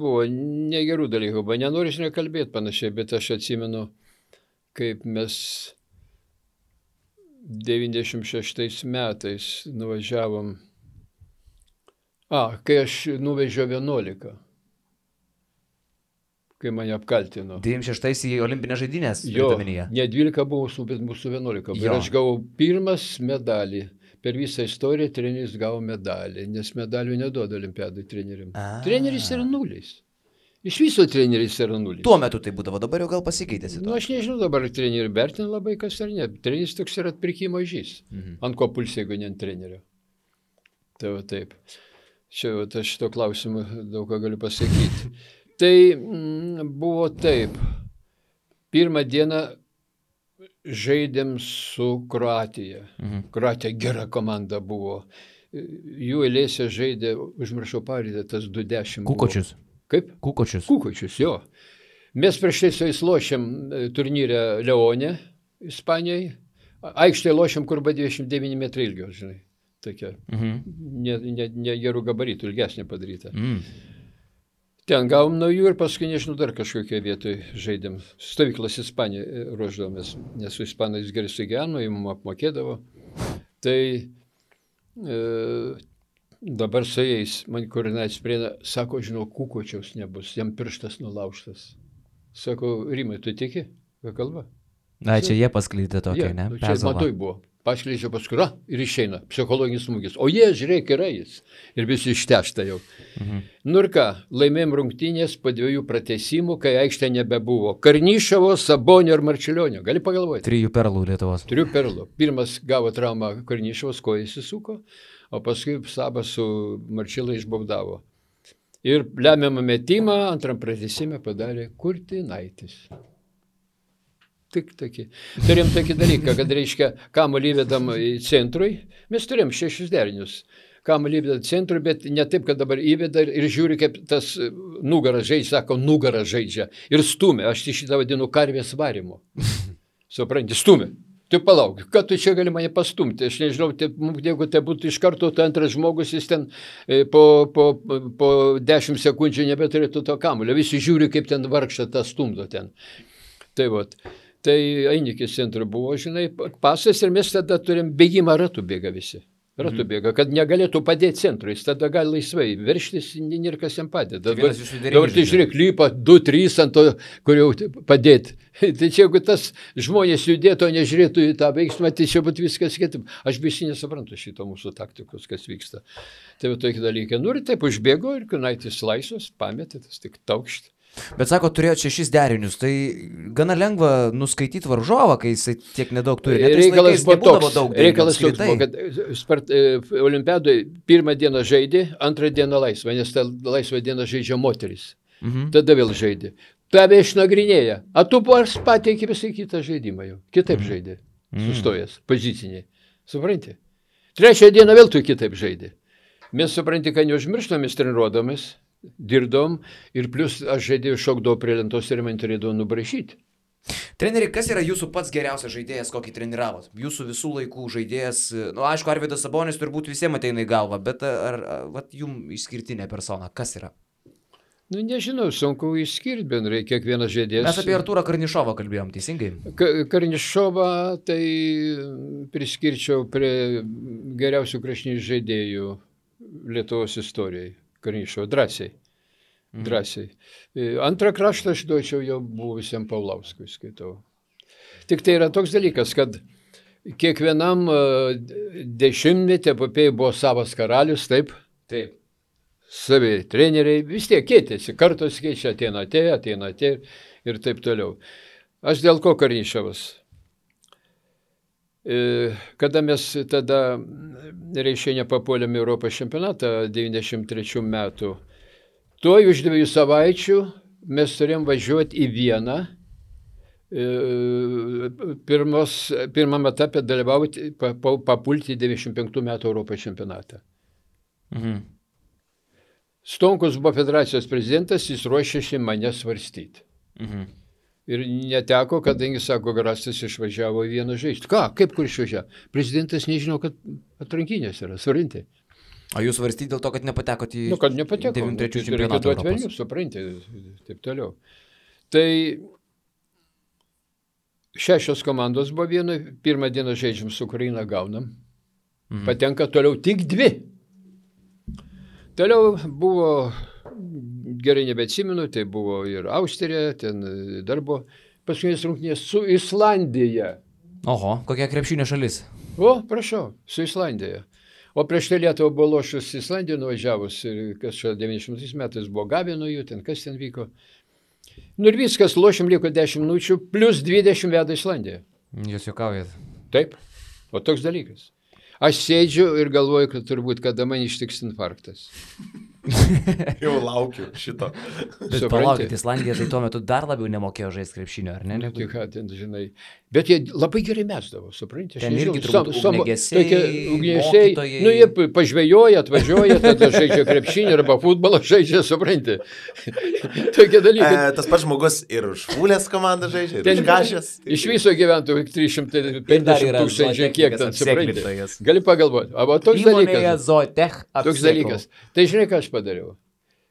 buvo negerų dalykų, bet nenoriu nekalbėti panašiai, bet aš atsimenu, kaip mes 96 metais nuvažiavom, kai aš nuvežiau 11, kai mane apkaltino. 96 į olimpinės žaidynės. Jo, ne 12 buvo, bet mūsų 11. Ir aš gavau pirmas medalį. Per visą istoriją treneris gavo medalį, nes medalių neduoda olimpiadai treneriam. Treneris yra nulis. Iš viso treneris yra nulis. Tuo metu tai būdavo, dabar jau gal pasikeitėsi. Aš nežinau, dabar trenerių vertina labai kas ar ne. Treneris toks yra atpirkimo žys. Ant ko pulsi, jeigu ne ant trenerio. Tai va taip. Čia aš šito klausimu daug ką galiu pasakyti. Tai buvo taip. Pirmą dieną žaidėm su Kroatija. Kroatija gera komanda buvo. Jų eilėse žaidė, užmiršau pavardę, tas 20. Kukočius. Kaip? Kukočius. Kukočius, jo. Mes prieš tai su jais lošėm turnyrę Leone, Ispanijai. Aikštėje lošėm, kur buvo 29 metrai ilgio, žinai. Tokia. Ne gerų gabaritų, ilgesnė padaryta. Ten gavom naujų ir paskui, nežinau, dar kažkokią vietoje žaidėm. Stovyklas Ispanijoje ruoždavomės, nes su ispanais gerai sugyveno, jį mums apmokėdavo. Tai dabar su jais, man koordinacija prieina, sako, žinau, Kukočiaus nebus, jam pirštas nulaužtas. Sako, Rimai, tu tiki, ką kalba? Na, čia jie paskleidė tokia, ne? Čia matoj buvo. Paskleidžia paskui, ir išeina, psichologinis smūgis. O jie, žiūrėk, yra jis. Ir visi ištešta jau. Nu ir ką, laimėjom rungtynės po 2 pratęsimų, kai aikštė nebebuvo. Karnišovo, Sabonio ir Marčiulionio. Gali pagalvoti. 3 perlų Lietuvos. 3 perlų. Pirmas gavo traumą Karnišovas, koja įsisuko, o paskui Sabas su Marčiula išbaudavo. Ir lemiamą metimą antram pratęsime padarė Kurtinaitis. Tik tokį. Turėjom tokį dalyką, kad reiškia, kamuolį įvedam į centrui, mes turėjom 6 derinius. Kamuolį įvedam centrui, bet ne taip, kad dabar įveda ir žiūri, kaip tas nugaras žaidžia, sako, nugaras žaidžia. Ir stumia, aš šitą vadinu karvės varimu. Supranti, stumia. Tai palauk, kad tu čia gali mane pastumti, aš nežinau, jeigu tai būtų iš karto, tai antras žmogus, jis ten po 10 sekundžių nebeturėtų to kamuolio. Visi žiūri, kaip ten vargšą tą stumdo ten. Tai vat. Tai Ainikis centro buvo, žinai, pasas ir mes tada turim bėgimą ratų bėga visi. Ratų bėga, kad negalėtų padėti centrui, jis tada gali laisvai verštis, ir kas jam padeda. Dabar tai žiūrėk, lypa 2-3 ant to, kur jau padėti. Tai čia, jeigu tas žmonės judėtų, o nežiūrėtų į tą veiksmą, tai čia būtų viskas kitaip. Aš visi nesuprantu šito mūsų taktikos, kas vyksta. Tai va tokie dalykai. Nu ir taip užbėgo ir Kunaitis laisvas, pametė, tas tik taukšt. Bet sako, turėjo 6 derinius, tai gana lengva nuskaityti varžovą, kai jisai tiek nedaug turi. Reikalas toks buvo, kad olimpiadoje pirmą dieną žaidė, antrą dieną laisvą, nes tą laisvą dieną žaidžia moteris. Tada vėl žaidė. Tave išnagrinėja. A tu pateikė visai kitą žaidimą jau. Kitaip žaidė. Sustojęs, poziciniai. Supranti? Trečią dieną vėl tu kitaip žaidė. Mes supranti, kad neužmirštam, mes treniruodamis. Dirbdom ir plus aš žaidėjau šokdavau prie lentos ir man turėdavau nubrašyti. Treneri, kas yra jūsų pats geriausias žaidėjas, kokį treniravot? Jūsų visų laikų žaidėjas, aišku, Arvydas Sabonis turbūt visiems ateina į galvą, bet ar jums išskirtinė persona, kas yra? Nežinau, sunku išskirti bendrai kiekvienas žaidėjas. Mes apie Artūrą Karnišovą kalbėjom, teisingai? Karnišovą tai priskirčiau prie geriausių kraštinių žaidėjų Lietuvos istorijai. Karnišovo drąsiai. Antrą kraštą aš duočiau jau buvusiam Paulauskui, skaitau. Tik tai yra toks dalykas, kad kiekvienam dešimtmetį epopėjai buvo savas karalius, taip? Taip. Savi treneriai vis tiek keitėsi, kartos keičia, ateina ir taip toliau. Aš dėl ko Karnišovas? Kada mes tada reiškia nepapuolėm Europos čempionatą 93 metų, tuoj už 2 savaičių mes turėjom važiuoti į Vieną, pirmam etape dalyvauti, papulti 95 metų Europos čempionatą. Stonkus buvo federacijos prezidentas, jis ruošėsi mane svarstyti. Ir neteko, kadangi, sako, Garastas išvažiavo į Vieną žaisti. Ką, kaip kur išvažiavo? Prezidentas nežino, kad atrankinės yra, svarinti. O jūs svarstyti dėl to, kad nepatekot į kad nepateko. 93 čempionatą Europos. Velnių, supranti, taip toliau. Tai 6 komandos buvo vienoje, pirmą dieną žaidžiam su Ukraina, gaunam. Patenka toliau tik 2. Toliau buvo, gerai nebeatsimenu, tai buvo ir Austrija, ten dar buvo paskutinės rungtynės su Islandija. Oho, kokia krepšinio šalis? O, prašau, su Islandija. O prieš tai Lietuvą buvo lošus Islandiją nuvažiavus, ir kas čia 90 metais buvo gavę nuo jų, ten kas ten vyko. Ir viskas, lošim liko 10 minučių, plus 20 veda Islandiją. Jūs juokaujat. Taip, o toks dalykas. Aš sėdžiu ir galvoju, kad turbūt kada man ištiks infarktas. Jau laukiu šito. Bet palaukit, Islandija tai tuo metu dar labiau nemokėjo žaisti krepšinio, ar ne? Tai ką ten, žinai. Bet jie labai gerai mesdavo, supranti. Ten irgi turbūt ugniagesiai, mokytojai. Jie pažvejoja, atvažiuoja, tada žaidžia krepšinį arba futbolą žaidžia, supranti. Tokie dalykai. Tas pats žmogus ir už Fulės komandą žaidžia, ir už Kašės. Iš viso gyventų 350 tūkstančių, kiek ten, supranti. Gali pagalvoti. O toks dalykas. Toks dalykas. Tai žinai, ką aš padariau.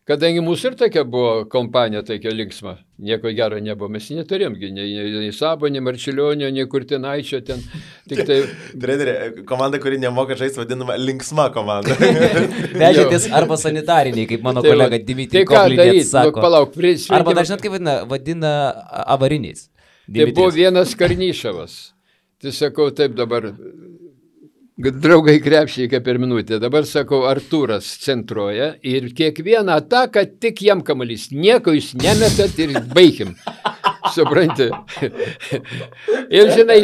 Kadangi mūsų ir tokia buvo kompanija, tokia linksma, nieko gero nebuvo, mes neturėjom, nei Sabo, nei Marčiulionio, nei Kurtinaičio ten. Tik tai... Treneri, komanda, kuri nemoka žaisti, vadinama linksma komanda. Vežėtis arba sanitariniai, kaip mano kolega Dimitrij Kovlinėt sako. Palauk, arba dažnai, kaip vadina avariniais. Tai buvo vienas Karnyšavas. Tai sakau, taip dabar... Draugai krepšiai per minutę. Dabar sakau, Artūras centruoja ir kiekvieną ataką tik jam kamuolys. Nieko jūs nemetat ir baigim. Supranti. Ir žinai,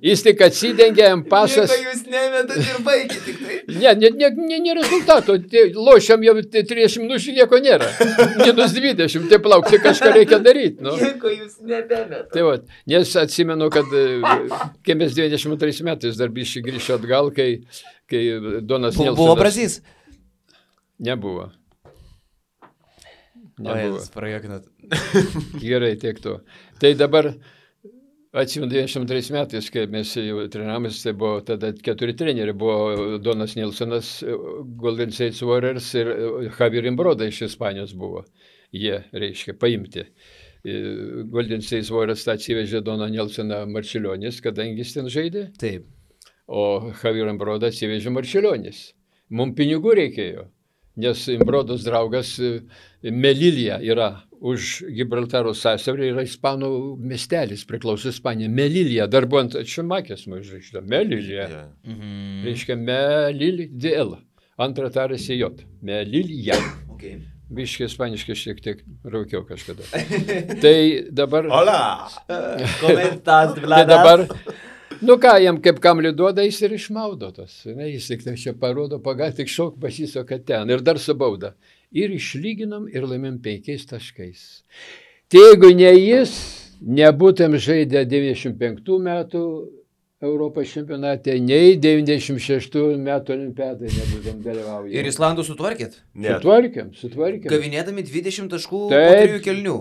jis tik atsidengia jam pasas. Nieko jūs nemetat ir baigit tik tai. Ne rezultato. Lošiam jau 30 minučių, nieko nėra. Minus 20. Tai plauk, tai kažką reikia daryti. Nu. Nieko jūs nebemetat. Tai va, nes atsimenu, kad kai mes 22 metais dar biškai grįžti atgal, kai Donas Nelsonas... Buvo Brazys? Nebuvo. O, jūs prajuokinat. Gerai, tiek to. Tai dabar, atsimenu, 92 metais, kai mes jau trenavomės, tai buvo tada 4 treneriai. Buvo Donas Nelsonas, Golden State Warriors ir Javier Imbroda iš Ispanijos buvo. Jie, reiškia, paimti. Golden State Warriors atsivežė Doną Nelsoną Marčiulionis, kadangi jis ten žaidė. Taip. O Javier Imbroda atsivežė Marčiulionis. Mums pinigų reikėjo. Nes Imbrodos draugas Melilija yra už Gibraltaro sąsiaurio, yra ispanų miestelis, priklauso Ispanija. Melilija, dar buvo ant Šimakės užrašyta. Melilija. Reiškia Melilija, DL. Antra tarasi J. Melilija. Okay. Biškai ispaniškai šiek tiek raukiau kažkada. Tai dabar... Hola! Komentas, Tai Vladas. dabar... Nu ką, jam kaip kamlių duoda, jis ir išmaudo tos. Jis tik čia parodo, tik šok pasisoka ten. Ir dar su bauda. Ir išlyginam ir laimėm 5 taškais. Tai jeigu ne jis, nebūtum žaidę 95 metų Europos čempionate, nei 96 metų olimpiadai nebūtum dalyvauję. Ir Islandų sutvarkėt? Sutvarkėm. Gavinėdami 20 taškų po Taip. 3 kelnių.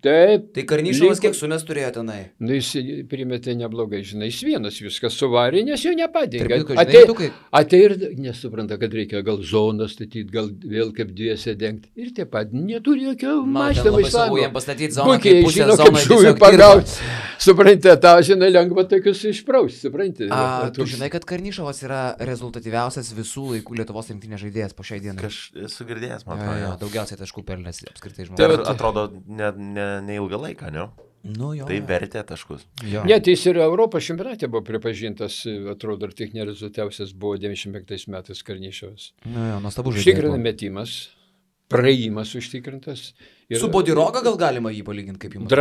Taip. Tai Karnyšovas kiek sumes turėjo tenai? Nu, jis primetė neblogai, žinai, jis vienas viskas suvarė, nes jo nepadėjo. Tarp kitko, žinai, Atei ir nesupranta, kad reikia gal zoną statyti, gal vėl kaip dviese dengti. Ir taip pat neturi jokio mąstymo Islandų. Jam pastatyti zoną, Puikiai kaip pusę žino, zoną kaip žuvį tiesiog pagauti. Suprantate, tą žinai, lengva tokius išprausti, suprantate. Tu žinai, kad Karnyšovas yra rezultatyviausias visų laikų Lietuvos rinktinės žaidėjas po šiai dienai. Esu girdėjęs, man Jo, atrodo. daugiausiai taškų pelnęs apskritai Tai žmogus. atrodo ne ilgą laiką, ne? Nu, jo, Tai jo. vertė taškus. Jo. Net jis ir Europos čempionate buvo pripažintas, atrodo, ir tik nerezultatyviausias buvo 95 metais Karnyšovas. Nu, jo, nuostabu Užtikrina žaidėjas. metimas, praėjimas užtikrintas. Ir Su Bodiroga gal galima jį palyginti, kaip jums?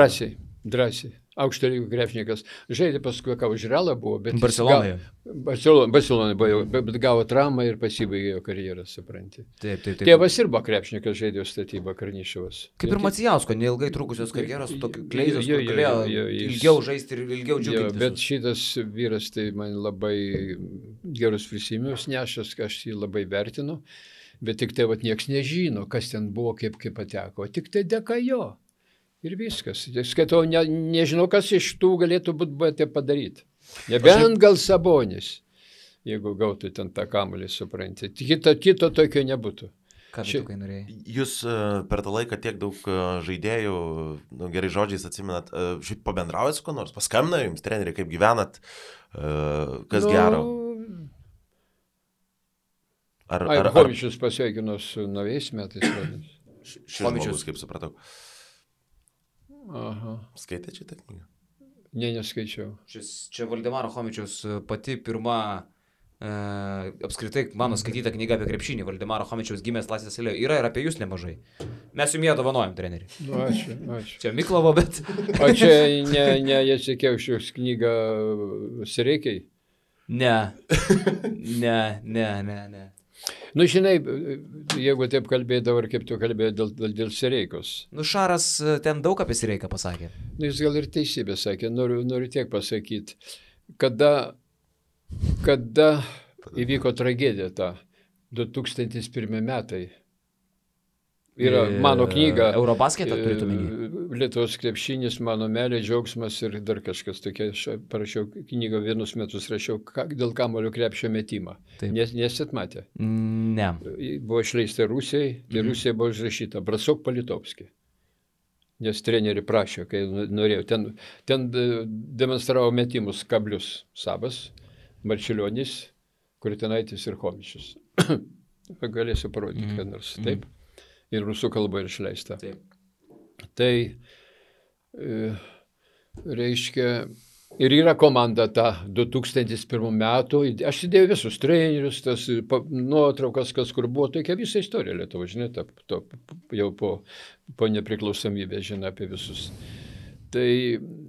Drąsiai. Aukšto lygio krepšininkas. Žaidė paskui, ką už Realą buvo, bet... Barcelonoje. Barcelonoje buvo, bet gavo traumą ir pasibaigė jo karjerą, supranti. Taip. Tėvas ir buvo krepšininkas, žaidė statybą Karnyšovas. Kaip ir Macijausko, neilgai trukusios karjeros, tokiu kleizos, Jo, kur galėjo jis- ilgiau žaisti ir ilgiau Jo, džiuginti. bet šitas vyras tai man labai gerus prisiminimus nešęs, aš jį labai vertinu, bet tik tai vat nieks nežino, kas ten buvo, kaip pateko, tik tai dėka jo. Ir viskas. Skaitau, nežinau, kas iš tų galėtų būti padaryti. Nebent gal Sabonis. jeigu gautų ten tą kamuolį, supranti. Kito tokio nebūtų. Ką tu kai norėjai? Jūs per tą laiką tiek daug žaidėjų, gerai žodžiais atsimenat, šiaip pabendraujat su kuo nors, paskambina jums, treneri, kaip gyvenat, kas gero? Chomičius pasveikino su naujais metais. Šis žmogus, kaip supratau. Aha. Skaitėte šitą knygą? Ne, neskaičiau. Čia Valdemaro Chomičiaus pati pirma apskritai mano skaityta knyga apie krepšinį. Valdemaro Chomičiaus gimęs Laisvės alėjoje. Yra ir apie jūs nemažai. Mes jums ją dovanojam, treneri. Nu, ačiū. Čia Miklovo, bet... O čia ne Jacekevičiaus knyga Sereikiai? Ne. Nu, žinai, jeigu taip kalbėdavo, ar kaip tu kalbėjai dėl Sereikos. Nu, Šaras ten daug apie Sereiką pasakė. Nu, jis gal ir teisybę sakė, noriu tiek pasakyti. Kada įvyko tragedija ta 2001 metai. Yra mano knyga. Eurobasketą turėtų minėti. Lietuvos krepšinis, mano meilė, džiaugsmas ir dar kažkas tokia. Aš parašiau knygą, vienus metus rašiau dėl kamuolio krepšio metimą. Nesit matę? Ne. Buvo išleista Rusijai, ir Rusija buvo užrašyta Brasok Palitovski. Nes treneri prašė, kai norėjau. Ten demonstravo metimus kablius Sabas, Marčiulionis, Kurtinaitis ir Chomičius. Galėsiu parodyti, kad nors taip. Ir rusų kalba ir išleista. Taip. Tai reiškia, ir yra komanda ta 2001 metų. Aš įdėjau visus trenerius, tas nuotraukas, kas kur buvo, tokia visa istorija Lietuva, žinai, jau po nepriklausomybės, žinai, apie visus. Tai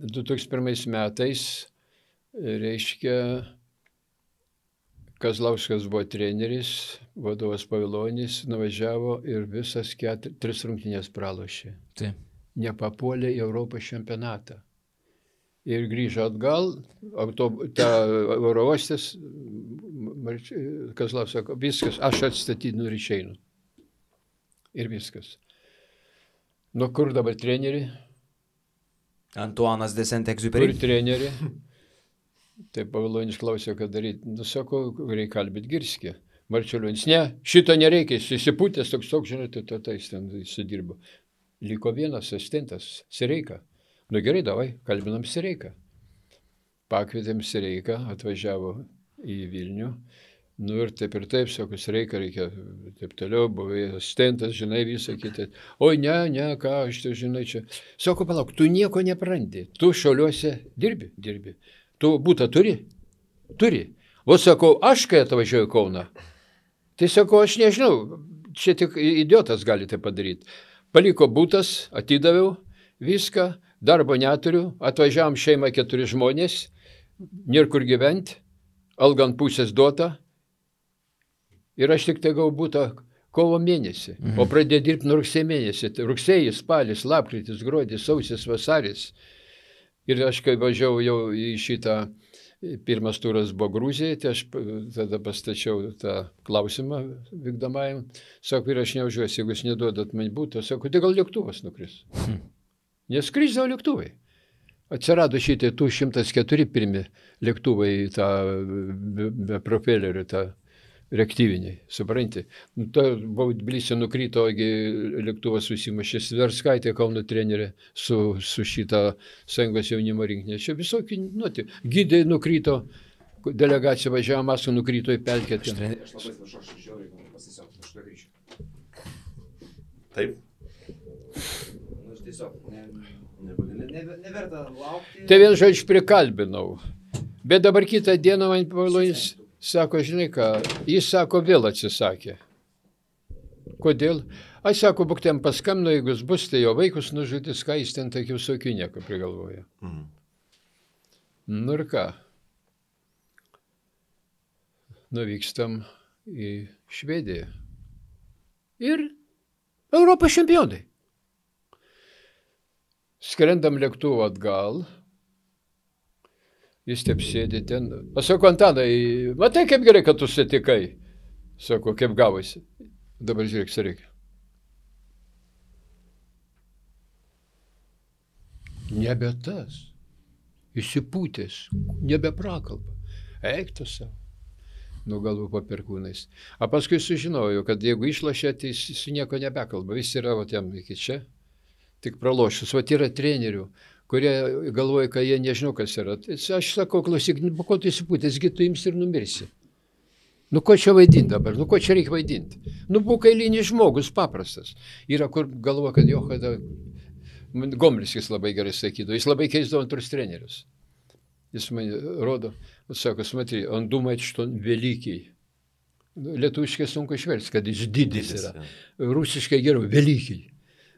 2001 metais, reiškia, Kazlauskas buvo treneris, vadovas Pavilonis, nuvažiavo ir visas 3 rungtynės pralošė. Taip. Nepapuolė į Europos čempionatą. Ir grįžo atgal, Eurovostis, Kazlauskas sako, viskas, aš atstatydinu ir išeinu. Ir viskas. Nu, kur dabar treneri? Antuanas de Saint-Exupéry. Kur treneri? Taip Pavilonis klausė, ką daryti. Nu, sako, reikia kalbėti Girskį. Marčiulionis, ne, šito nereikia, jis įsipūtęs toks, žinai, jis ten sudirbo. Liko vienas asistentas, Sereika. Nu gerai, davai, kalbinam Sereiką. Pakvietėm Sereiką, atvažiavo į Vilnių. Nu ir taip, sako, Sereika reikia, taip toliau, buvo asistentas, žinai, visą kitą. Oi, ne, ką, aš tai žinai čia. Sako, palauk, tu nieko neprandi, tu Šiauliuose dirbi. Tu būtą turi? Turi. O sakau, aš kai atvažiuoju į Kauną, tai sakau, aš nežinau, čia tik idiotas gali tai padaryti. Paliko būtas, atidaviau viską, darbo neturiu, atvažiavom šeimą 4 žmonės, nėra kur gyventi, alga ant pusės duota ir aš tik tai gavau būtą kovo mėnesį, o pradėjau dirbti nuo rugsėjo mėnesį. Rugsėjis, spalis, lapkritis, gruodis, sausis, vasaris. Ir aš kai važiavau jau į šitą, pirmas turas buvo Gruzijai, tai aš tada pastačiau tą klausimą vykdomajam. Sako, ir aš neužiuosi, jeigu jūs neduodat man būtų, sako, tai gal lėktuvas nukris. Neskrisdavo lėktuvai. Atsirado šitie 104 pirmi lėktuvai, tą be propelerių, tą reaktyviniai, supranti. Buvo Tbilisį nukrito, lėktuvas susimušė, Sverskaitė, Kauno trenerė, su šitą Sąjungos jaunimo rinkinė. Čia visokių, gydai nukrito, delegacija važiavo, Maskva nukrito į pelkę. Aš labai atsiprašau, aš žiauriai pasisiau, aš to grįšiu. Taip. Aš tiesiog neverta laukti. Tai vien žodžiu prikalbinau. Bet dabar kitą dieną man Pavilonis sako, žinai ką, jis sako, vėl atsisakė. Kodėl? Aš sako, būk ten paskambino, jeigu jis bus, tai jo vaikus nužudys, ką jis ten tokių visokių nieko prigalvoja. Nu ir ką? Nuvykstam į Švediją. Ir Europos čempionai. Skrendam lėktuvu atgal. Jis taip sėdi ten. Aš sako, Antanai, matai, kaip gerai, kad tu sutikai. Sako, kaip gavosi. Dabar žiūrėk, Sereikia. Nebe tas. Įsipūtęs. Nebe prakalba. Eik tu savo. nuo galvų po perkūnais. O paskui sužinojau, kad jeigu išlošia, tai jis su nieko nebekalba. Jis yra jam iki čia, tik pralošus. O yra trenerių, kurie galvoja, kad jie nežinau, kas yra. Tai aš sakau, klausyk, ko tu įsipūtęs, gi tu imsi ir numirsi. Nu, ko čia vaidinti dabar? Nu, ko čia reikia vaidinti? Nu, būk eilinis žmogus, paprastas. Yra, kur galvoja, kad jo, kada... Gomliskis labai gerai sakydavo, jis labai keisdavo antrus trenerius. Jis man rodo, sako, смотри, он думает, что он великий. Lietuviškai sunku išversti, kad jis didis yra. Rusiškai geriau, великий.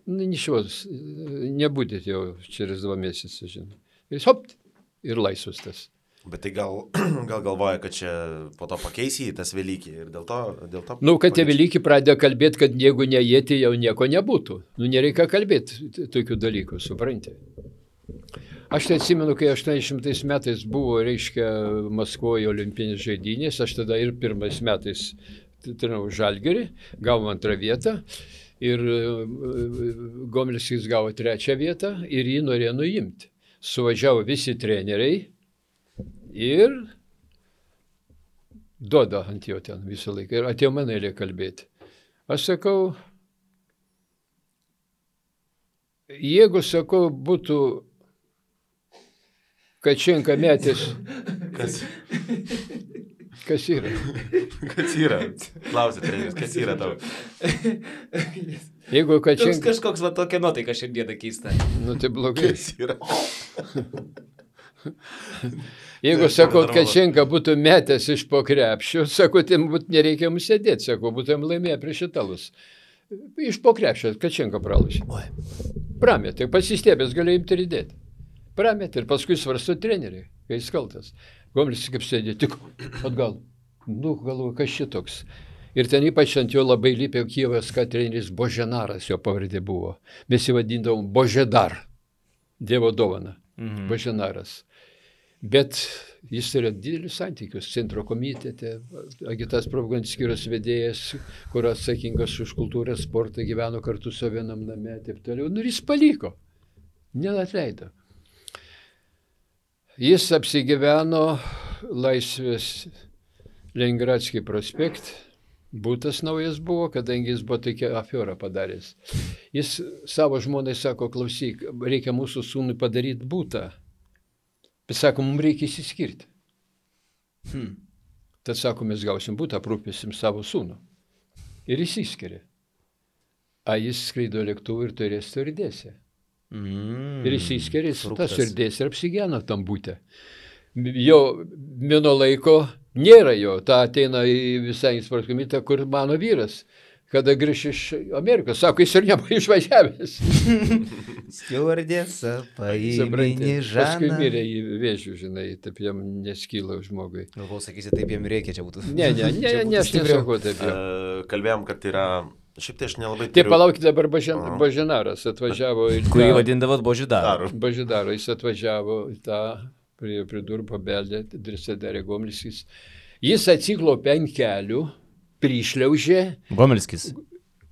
Nu, ничего, не будет jau через 2 mėnesius, žinai. Ir hop, ir laisvas tas. Bet tai gal galvoja, kad čia po to pakeisi tas Velykį ir dėl to... Nu, kad tie Velykį pradėjo kalbėti, kad jeigu ne jie, tai jau nieko nebūtų. Nu, nereikia kalbėti tokių dalykų, supranti. Aš tai atsimenu, kai 80 metais buvo, reiškia, Maskvoje olimpinės žaidynės, aš tada ir 1 metais trenavau Žalgirį, gavom 2 vietą ir Gomliskis gavo 3 vietą ir jį norėjo nuimti. Suvažiavo visi treneriai ir duoda ant jo ten visą laiką. Ir atėjo man eilė kalbėti. Aš sakau, jeigu, sakau, būtų Kačenka metęs... Kas yra? Kas yra? Klausė treneris, kas yra tau? Jeigu Kačenka... Kažkoks va tokia nuotaika šiandieną keista. Nu, tai blogai. Kas yra? Jeigu, sakau, Kačenka būtų metęs iš po krepšio, sakau, tai nereikia mums sėdėti, sakau, būtum laimėję prieš italus. Iš po krepšio Kačenka pralašė. Prametė, pasistėbės galėjo imti ir įdėti. Prametė ir paskui svarsto treneriai, kai jis kaltas. Gomliskis kaip sėdė, tik atgal. Nu, galvoju, kas šitoks. Ir ten ypač ant jo labai lypė Kijevas, kad treneris Boženaras, jo pavardė buvo. Mes jį vadindavom Božedar, Dievo dovana, Boženaras. Bet jis turėjo didelius santykius centro komitete, agitas propagandos skyriaus vedėjas, kur atsakingas už kultūrą, sportą, gyveno kartu su vienam name, taip toliau. Nu, ir jis paliko, neatleido. Jis apsigyveno Laisvės Lengradskį prospekt, būtas naujas buvo, kadangi jis buvo tokia afiorą padaręs. Jis savo žmonai sako, klausyk, reikia mūsų sūnui padaryti būtą. Bet sako, mums reikia įsiskirti. Tad sako, mes gausim būtą, aprūpėsim savo sūnų. Ir įsiskiria. A jis skraido lėktuvu ir turės stardėse. Ir įsiskiria, tas stardėse ir apsigyveno tam būtę. Jo mino laiko nėra jo. Ta ateina į visai sporto komitetą, kur mano vyras. Kada grįž iš Amerikos, sako, jis ir nebuvo išvažiavęs. Stiuardėsa, paimini Žaną. Paskui mirė į vėžių, žinai, taip jam neskyla žmogui. Galvau, sakysi, taip jam reikia, čia būtų. Ne, aš nesakau taip jau. Kalbėjom, kad yra, šiaip tai aš nelabai... Taip, palaukit, dabar Boženaras atvažiavo į tą... Kurį vadindavot Božedaru. Božedaro, jis atvažiavo į tą, prie durų pabeldė, Drisadarė Gomliskis. Jis atsiklaupė ant kelių, prišliaužė. Gomliskis.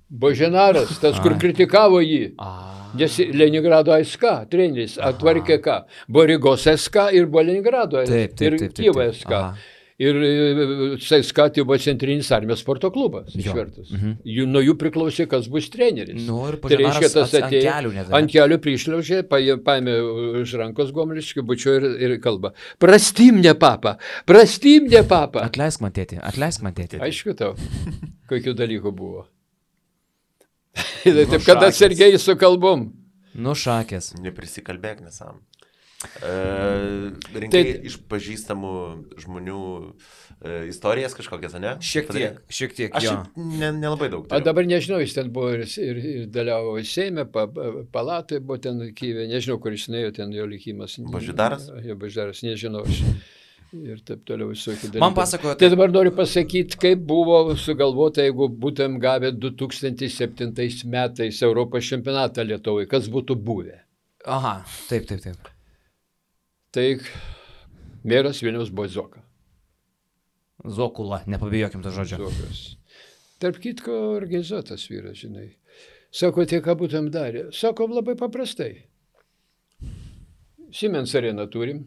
Boženaras, tas, kur kritikavo jį. Nes Leningrado SK treneris atvarkė ką? Buvo Rygos SK ir buvo Leningrado ir Kijevo SK. Ir SK tai buvo Centrinis armijos sporto klubas išvertus. Nuo jų priklausė, kas bus treneris. Tai reiškia, tas atėjo ant kelių prišliaužė, paėmė už rankos Gomliskį, bučio ir kalba. Prastimne papa. Atleisk man tėti. Aišku tau, kokių dalykų buvo. Taip, kad atsargiai su kalbom. Nušakės. Neprisikalbėk nesam. Rinkai iš pažįstamų žmonių istorijas kažkokias, ne? Šiek tiek, aš jo. Nelabai daug. O dabar nežinau, jis ten buvo ir dalyvavo Seime, palatoje buvo ten Kijeve, nežinau, kur jis nuėjo, ten jo likimas. Božedaras? Jo Božedaras, nežinau aš. Ir taip toliau visokių dalykų. Man pasakojo... Tai dabar noriu pasakyti, kaip buvo sugalvota, jeigu būtum gavę 2007 metais Europos čempionatą Lietuvai, kas būtų buvę. Aha, taip. Tai meras Vilniaus buvo Zoka. Zokula, nepabijokim to žodžio. Zokas. Tarp kitko organizuotas vyras, žinai. Sako, tai ką būtum darę? Sako, labai paprastai. Siemens areną turim.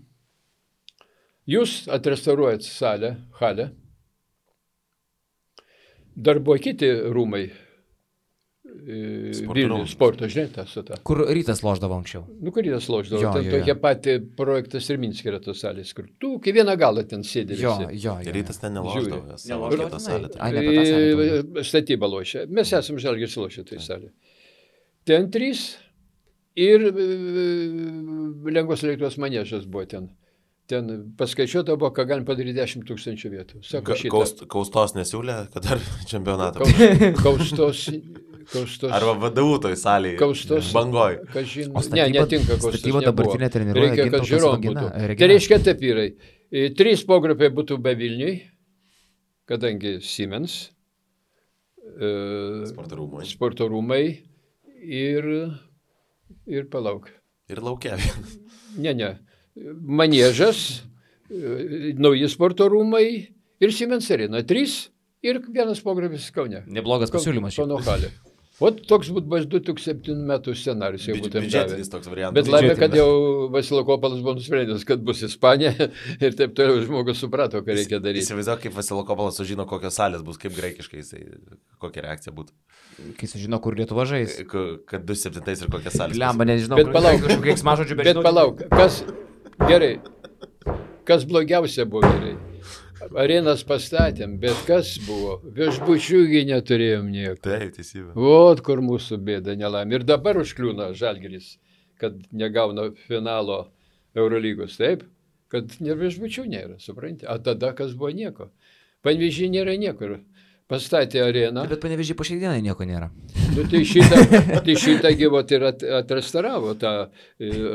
Jūs atrestauruojat salę, halę, Dar buvo kiti rūmai. Vilnius sporto, žinai, tas su ta. Kur Rytas loždavo anksčiau. Kur Rytas loždavo. Jo, Ten tokie pati projektas ir Minske yra tos salės, kur tu kai vieną galą ten sėdė. Jo. Rytas ten neloždavo. Neloždavo salė. Statybą lošia. Mes esam Žalgiris lošia tai salė. Ten 3 ir lengvos elektros maniežas buvo ten. Ten paskaičiuota buvo, ką galim padaryti 10 000 vietų. Sako, Kaustos nesiūlė, kad dar čempionatą. Kaustos. Arba VDU toj salėje. Kaustos. Bangoj. Ne, netinka kaustos. Statyba dabartinė treniruoja. Reikia, kad žiūrom būtų. Tai reiškia taip vyrai. 3 pogrupiai būtų be Vilniui, kadangi Siemens, sporto rūmai ir palauk. Ir laukia. Ne. Maniežas, nauji sporto rūmai ir Siemens arena. 3 ir 1 pogrupis Kaune. Neblogas pasiūlymas. Kauno halė. Ot toks būtų bus 2007 metų scenarijus, jau būtų biudžetinis toks variantas. Bet laimė, kad jau Vasilokopolas buvo nusprendęs, kad bus Ispanija ir taip toliau žmogus suprato, ką reikia daryti. Įsivaizduok, kaip Vasilokopolas sužino, kokios salės bus, kaip graikiškai, kokia reakcija būtų. Kai sužino, kur Lietuva žais. Kad 2007 ir kokias salės. Lemba, nežinau. Bet palauk, kas blogiausia buvo gerai. Arenas pastatėm, bet kas buvo? Viešbučiųgi neturėjom nieko. Taip, teisybė. Vot kur mūsų bėda nelaimė. Ir dabar užkliūna Žalgiris, kad negauna finalo Eurolygos, taip? Kad viešbučių nėra, supranti? O tada kas buvo nieko. Panevėžy nėra niekur. Pastatė areną. Bet Panevėžy po šiai dienai nieko nėra. Nu, tai šitą gyvot ir atrestauravo tą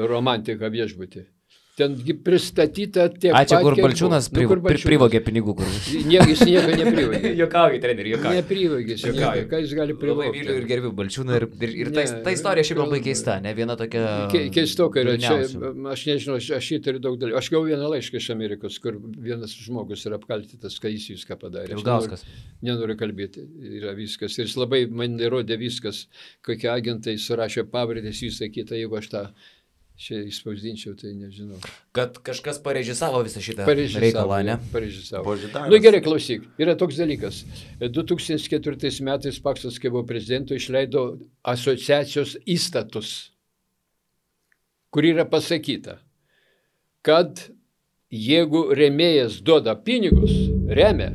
romantiką viešbutį. Ten pristatyta tiek pat, čia kur Balčiūnas privogė pinigų. Jis nieko neprivogė. Jokauji, treneri, jokauji. Neprivogė, ką jis gali privogti. Labai myliu ir gerbiu Balčiūną ir ta istorija šiaip labai keista, ne viena tokia... Keistoka yra, čia, aš nežinau, aš įtariu daug dalykų. Aš gavau vieną laišką iš Amerikos, kur vienas žmogus yra apkaltytas, kad jis viską padarė. Ilgauskas. Nenoriu kalbėti, yra viskas. Ir jis labai man įrodė viskas, kokie agentai surašė pavardės, visą kitą, jeigu aš tą... Čia įspausdinčiau, tai nežinau. Kad kažkas parežisavo visą šitą reikalą, ne? Parežisavo. Nu gerai, klausyk, yra toks dalykas. 2004 metais Paksas, kai buvo prezidentu, išleido asociacijos įstatus, kur yra pasakyta, kad jeigu rėmėjas duoda pinigus, remia,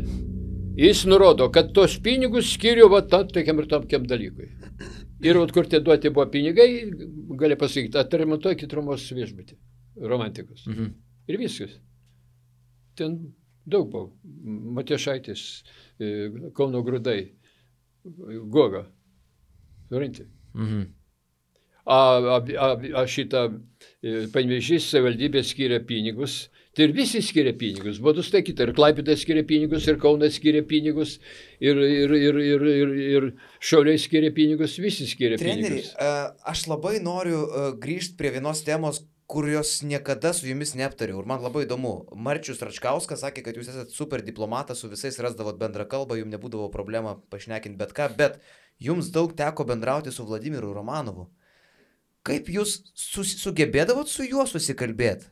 jis nurodo, kad tos pinigus skiriu va tokiam ir tokiam dalykui. Ir kur tie duoti buvo pinigai, gali pasakyti, atremontuokit Romos viešbutį, romantikos. Ir viskas. Ten daug buvo. Matijošaitis, Kauno Grūdai, Goga. Supranti? Šitą Panevėžys savivaldybė skiria pinigus. Tai ir visi skiria pinigus. Buvo nustatyta, ir Klaipėda skiria pinigus, ir Kaunas skiria pinigus, ir Šiauliai skiria pinigus, visi skiria pinigus. Treneri, aš labai noriu grįžti prie vienos temos, kurios niekada su jumis neaptariau. Ir man labai įdomu. Marčius Račkauskas sakė, kad jūs esate super diplomatas, su visais rasdavot bendrą kalbą, jums nebūdavo problema pašnekinti bet ką, bet jums daug teko bendrauti su Vladimiru Romanovu. Kaip jūs sugebėdavot su juo susikalbėti?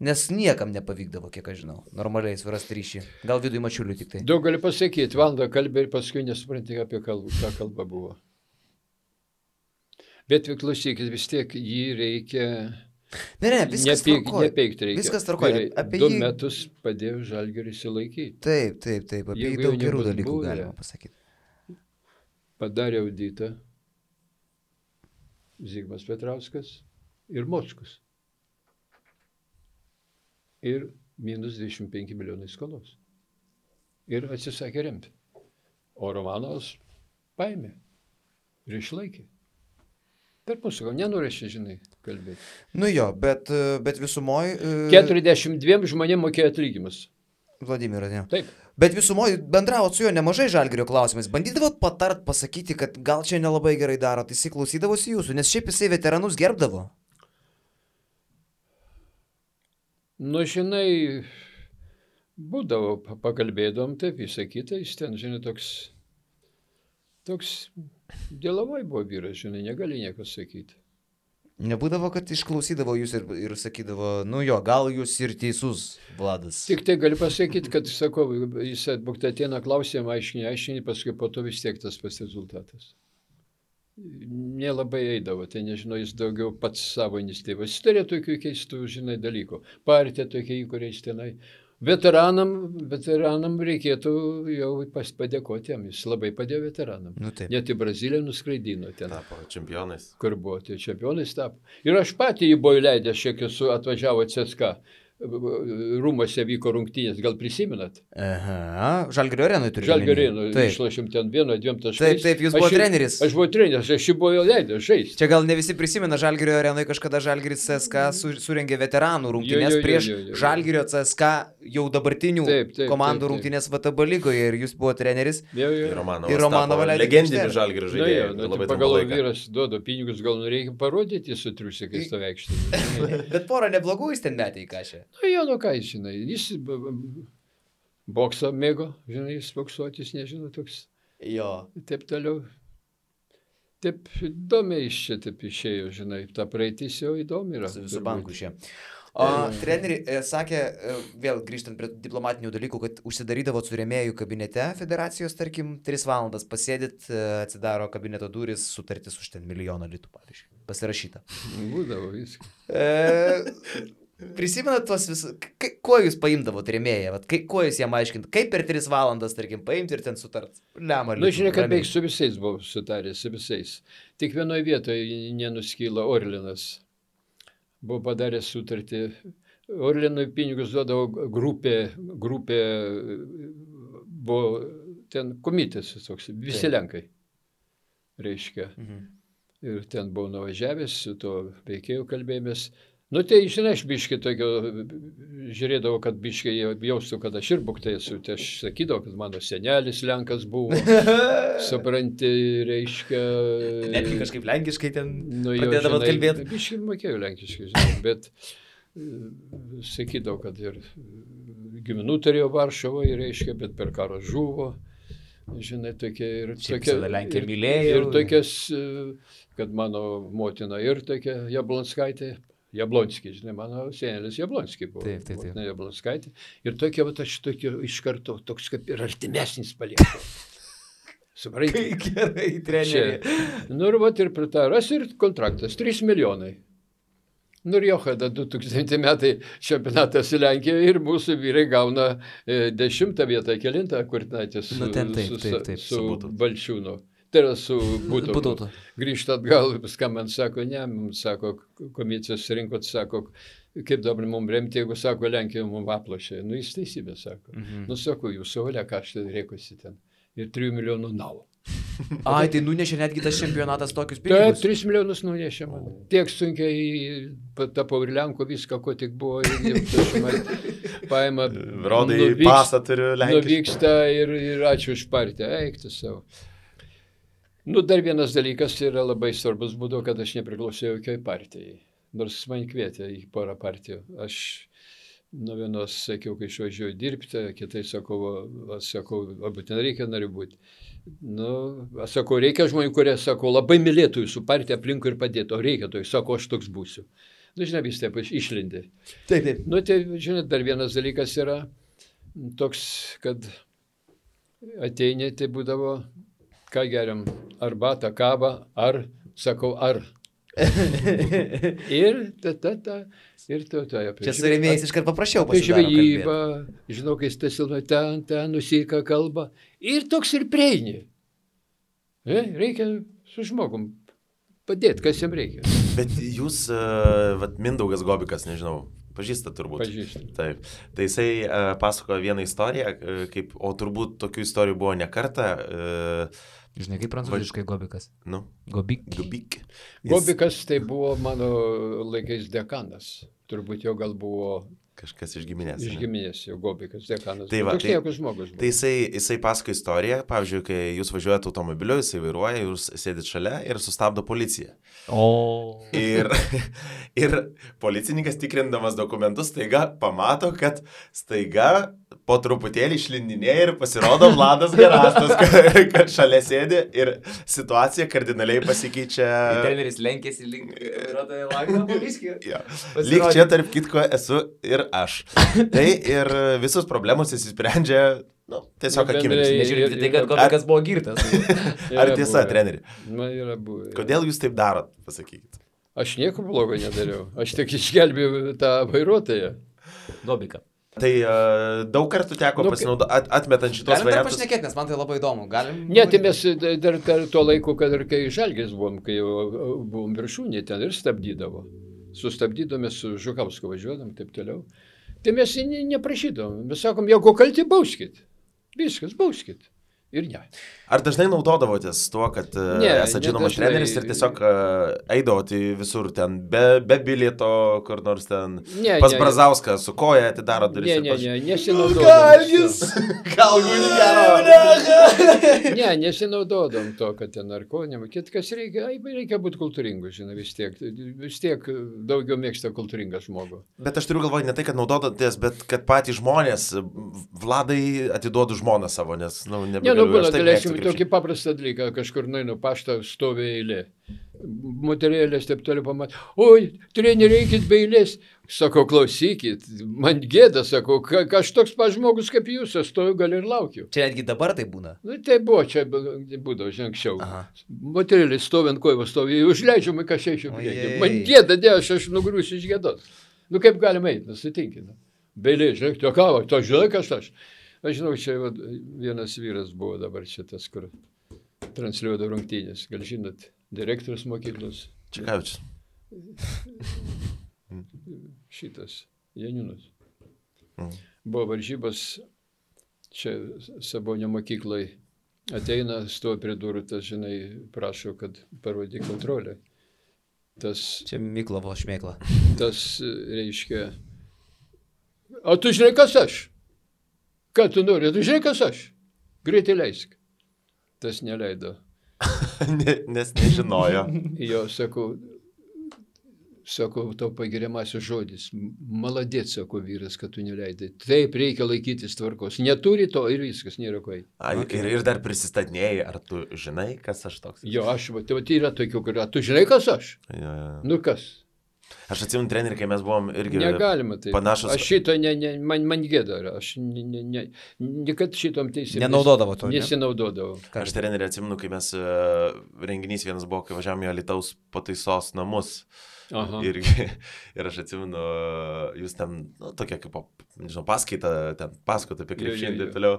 Nes niekam nepavykdavo, kiek aš žinau, normaliai surasti ryšį. Gal Vidui Mačiuliui tik tai. Daug gali pasakyti, valandą kalbė ir paskui nesupranti, apie ką kalba buvo. Bet klausykit, vis tiek jį reikia... Ne, viskas tvarkoja. Nepeikti reikia. Viskas tvarkoja. 2 metus padėjo Žalgirį išsilaikyti. Taip. Apie jį daug gerų dalykų galima pasakyti. Padarė auditą Zigmas Petrauskas ir Mockus. Ir minus 25 milijonai skolos. Ir atsisakė remti. O Romanovas paėmė ir išlaikė. Per mūsų, gal nenorėšia, žinai, kalbėti. Nu jo, bet visumoj... 42 žmonėm mokėjo atlygimus. Vladimiras, ne. Taip. Bet visumoj bendravot su juo nemažai Žalgirio klausimais. Bandydavot patart, pasakyti, kad gal čia nelabai gerai darot, jisai klausydavosi jūsų, nes šiaip jisai veteranus gerbdavo. Nu, žinai, būdavo, pakalbėdom, taip, visą kitą, jis ten, žinai, toks dėlavai buvo vyras, žinai, negali nieko sakyti. Nebūdavo, kad išklausydavo jūs ir sakydavo, nu jo, gal jūs ir teisus, Vladas. Tik tai galiu pasakyti, kad, sakau, jis atbūkta ateina klausimą, aiškini, paskui po to vis tiek tas pats rezultatas. Nelabai eidavo, tai nežinau, jis daugiau pats savo iniciatyvą. Jis turėjo tokių keistų, žinai, dalykų. Partija tokia, į kuriais tenai. Veteranam reikėtų jau padėkoti jam, jis labai padėjo veteranam. Nu, taip. Net į Braziliją nuskraidino ten. Tapo čempionais. Kur buvo, tai čempionais tapo. Ir aš patį jį buvau įleidęs, šiek tiek atvažiavo CSKA. Rūmose vyko rungtynės, gal prisimenat? Aha, Žalgirio arenui turite. Žalgirio arenui, išlošėm ten 1-2 taškais. Taip, jūs buvo treneris. Aš buvau treneris, aš jį buvau leidęs žaisti. Čia gal ne visi prisimena, Žalgirio arenui kažkada Žalgiris CSKA surengė veteranų rungtynės prieš Žalgirio CSKA jau dabartinių komandų rungtynės VTB lygoje ir jūs buvo treneris. Ir Romanovą leidė. Legendinį Žalgirio žaidėją. Pagalvoju, vyras duoda pinigus, gal reikia parodyti su triusikais to veikštį. Bet porą neblogų jis ten metė į kažę. Nu, jo, nu ką, žinai, jis boksą mėgo, žinai, jis boksuotis, nežinau, toks. Jo. Taip toliau. Taip įdomiai iš čia taip išėjo, žinai, ta praeitis jau įdomi yra. Su banku šie. O treneri sakė, vėl grįžtant prie diplomatinių dalykų, kad užsidarydavo su rėmėjų kabinete federacijos, tarkim, 3 valandas pasėdit, atsidaro kabineto duris, sutartis už ten 1 milijoną litų, pavyzdžiui, pasirašyta. Būdavo viską. Prisimenat tuos visus, kuo jūs paimdavo rėmėją, kuo jūs jam aiškint, kaip per 3 valandas, tarkim, paimti ir ten sutart? Nu, žiūrėk, kad beig su visais buvau sutaręs, su visais. Tik vienoje vietoje nenuskyla Orlinas. Buvo padaręs sutartį. Orlinui pinigus duodavo grupė buvo ten komitis toks, visi Lenkai, reiškia. Ir ten buvau nuvažiavęs, su to veikėjų kalbėjomės. Nu, tai, žinai, aš biškai tokio, žiūrėdavau, kad biškai jaustų, kad aš ir buktai esu. Tai aš sakydavau, kad mano senelis Lenkas buvo, supranti, reiškia. Netgi kažkaip lenkiškai ten pradėdavot kalbėti. Biškai mokėjau lenkiškai, žinai, bet sakydavau, kad ir giminų turėjo Varšuvoje, reiškia, bet per karą žuvo. Žinai, tokie ir tokie. Lenkija mylėjo. Ir tokias, kad mano motina ir tokia Jablonskaitė. Jablonskis, žinai, mano senelis Jablonskis buvo. Taip. Jablonskaitė. Ir tokia, aš tokia iš karto, toks kaip ir artimesnis paliekau. Supranti? Gerai, treneri. Nu ir vat ir pritaras ir kontraktas, 3 milijonai. Nu ir Johada 2000 metai čempionatas į Lenkiją ir mūsų vyrai gauna 10 vietą, 9, kur natės su Balčiūnu. Tai yra su Būtautu. Grįžta atgal, skambant, sako, ne, mums sako, komisijos rinkot, sako, kaip dabar mums remti, jeigu sako, Lenkija mums aplošė. Nu, jis teisybė, sako. Nu, sako, jūs savalia, ką aš tai reikosi ten. Ir 3 milijonų navo. Ai, tai nunešė netgi tas čempionatas tokius pinigus? Taip, 3 milijonus nunešė man. Tiek sunkiai tapau ir Lenko viską, ko tik buvo. Paima, Rodai pasą turiu Lenkiškai. Nuvyksta ir ačiū už partiją. Eik tu savo. Nu, dar vienas dalykas yra labai svarbus būdo, kad aš nepriklausėjau jokiai partijai. Nors man kvietė į porą partijų. Aš nuo vienos sakiau, kai išvažiuoju dirbti, kitai sakau, būtinai reikia nariu būti. Nu, aš sakau, reikia žmonių, kurie, sakau, labai mylėtų jūsų partiją aplinkui ir padėtų. O reikia to, sakau, aš toks būsiu. Nu, žinai, vis taip išlindė. Taip. Nu, tai, žinai, dar vienas dalykas yra toks, kad ateini, tai būdavo, ką geriam, arbatą, kavą, ar, sakau, ar. Ir ir Čia su rėmėjais iškart paprašiau pasidaro kalbėti. Žinau, kai stasilva ten, nusika kalba. Ir toks ir prieini. Reikia su žmogum padėti, kas jam reikia. Bet jūs, Mindaugas Gobikas, nežinau, pažįstat turbūt. Pažįstat. Taip. Tai jisai pasakojo vieną istoriją, o turbūt tokių istorijų buvo ne kartą. Žinai, kaip prancūziškai Gobikas? Nu. Gobik. Gobikas tai buvo mano laikais dekanas. Turbūt jau gal buvo Kažkas iš giminės. Iš giminės jau Gobikas, dekanas. Tai va, toks niekas žmogus buvo. Tai jisai pasako istoriją, pavyzdžiui, kai jūs važiuojate automobiliu, jisai vairuoja, jūs sėdit šalia ir sustabdo policija. Ir policininkas tikrindamas dokumentus staiga pamato, kad staiga po truputėlį išlindinėja ir pasirodo Vladas Garastas, kad šalia sėdi ir situacija kardinaliai pasikeičia. Treneris lenkėsi link vairuotojo langą poliskį. Lyg čia tarp kitko esu ir aš. Tai ir visus problemus įsisprendžia, tiesiog akimirksniu. Nežiūrėti tai, kad Gobikas buvo girtas. Ar tiesa, treneri? Man yra buvę. Kodėl jūs taip darot, pasakykit? Aš nieko blogo nedariau. Aš tik išgelbėjau tą vairuotoją. Gobiką. Tai daug kartų teko pasinaudoti, atmetant šitos variantus. Galim dar pašnekėti, nes man tai labai įdomu. Ne, tai mes dar tuo laiku, kad ir kai Žalgiris buvom, kai jau buvom viršūnė, ten ir stabdydavo. Sustabdydome su Žukausku važiuodam, taip toliau. Tai mes neprašydom. Mes sakom, jeigu kalti, bauskit. Viskas, bauskit. Ir ne. Ar dažnai naudodavotės tuo, kad esate žinomas treneris ir tiesiog eidavote visur ten be bilieto, kur nors ten pas Brazauską su koja atidaro duris? Ne, nesinaudodom. Ne, nesinaudodom to, kad ten narkonėm. Kitkas reikia būti kultūringu, žinai, vis tiek daugiau mėgsta kultūringą žmogų. Bet aš turiu galvoje ne tai, kad naudodotės, bet kad patys žmonės, Vladai atiduodu žmoną savo, nes, būna, galėsim tokį paprastą dalyką, kažkur nueinu paštą, stovi eilė. Moterėlės taip toliau pamatė. Oi, treneri, eikit be eilės. Sako, klausykit, man gėda, sako, aš toks pats žmogus kaip jūs, aš stoju gal ir laukiu. Čia netgi dabar tai būna? Tai buvo, čia būdavo, žinai, anksčiau. Moterėlės stovi ant kojų, stovi, užleidžiu, ką šeičiu priekį. Man gėda, aš nugriusiu iš gėdos. Kaip galima eiti, sutinkit. Be eilės, žinai, to kavo, to žinai, kas aš. Aš žinau, čia vienas vyras buvo dabar šitas, kur transliuodavo rungtynės. Gal žinot, direktorius mokyklos. Čekavičius. Šitas, Janiūnas. Buvo varžybos, čia Sabonio mokyklai. Ateina, stovi prie durų, tas, žinai, prašo, kad parodyk kontrolę. Čia Miklovo šmėkla. Tas reiškia, o tu žinai, kas aš? Ką tu nori? Tu žinai, kas aš? Greitai leisk. Tas neleido. Nes nežinojo. Jo, sakau, tau pagiriamasis žodis. Maladėt, sako vyras, kad tu neleidai. Taip, reikia laikytis tvarkos. Neturi to ir viskas, nėra ko. Ir dar prisistatinėjai, ar tu žinai, kas aš toks? Jo, tai yra tokių, kur, tu žinai, kas aš? Nu kas? Aš atsimenu trenerių, kai mes buvom irgi negalima taip. Panašus. Aš šito, man gėda, aš kad šitom teisėmis. Nenaudodavo to. Nesinaudodavo. Aš trenerių atsimenu, kai mes renginys vienas buvo, kai važiavome į Alytaus pataisos namus. Ir aš atsimenu, jūs ten, tokia kaip, nežinau, paskaita, ten paskota apie krepšinį ir taip toliau.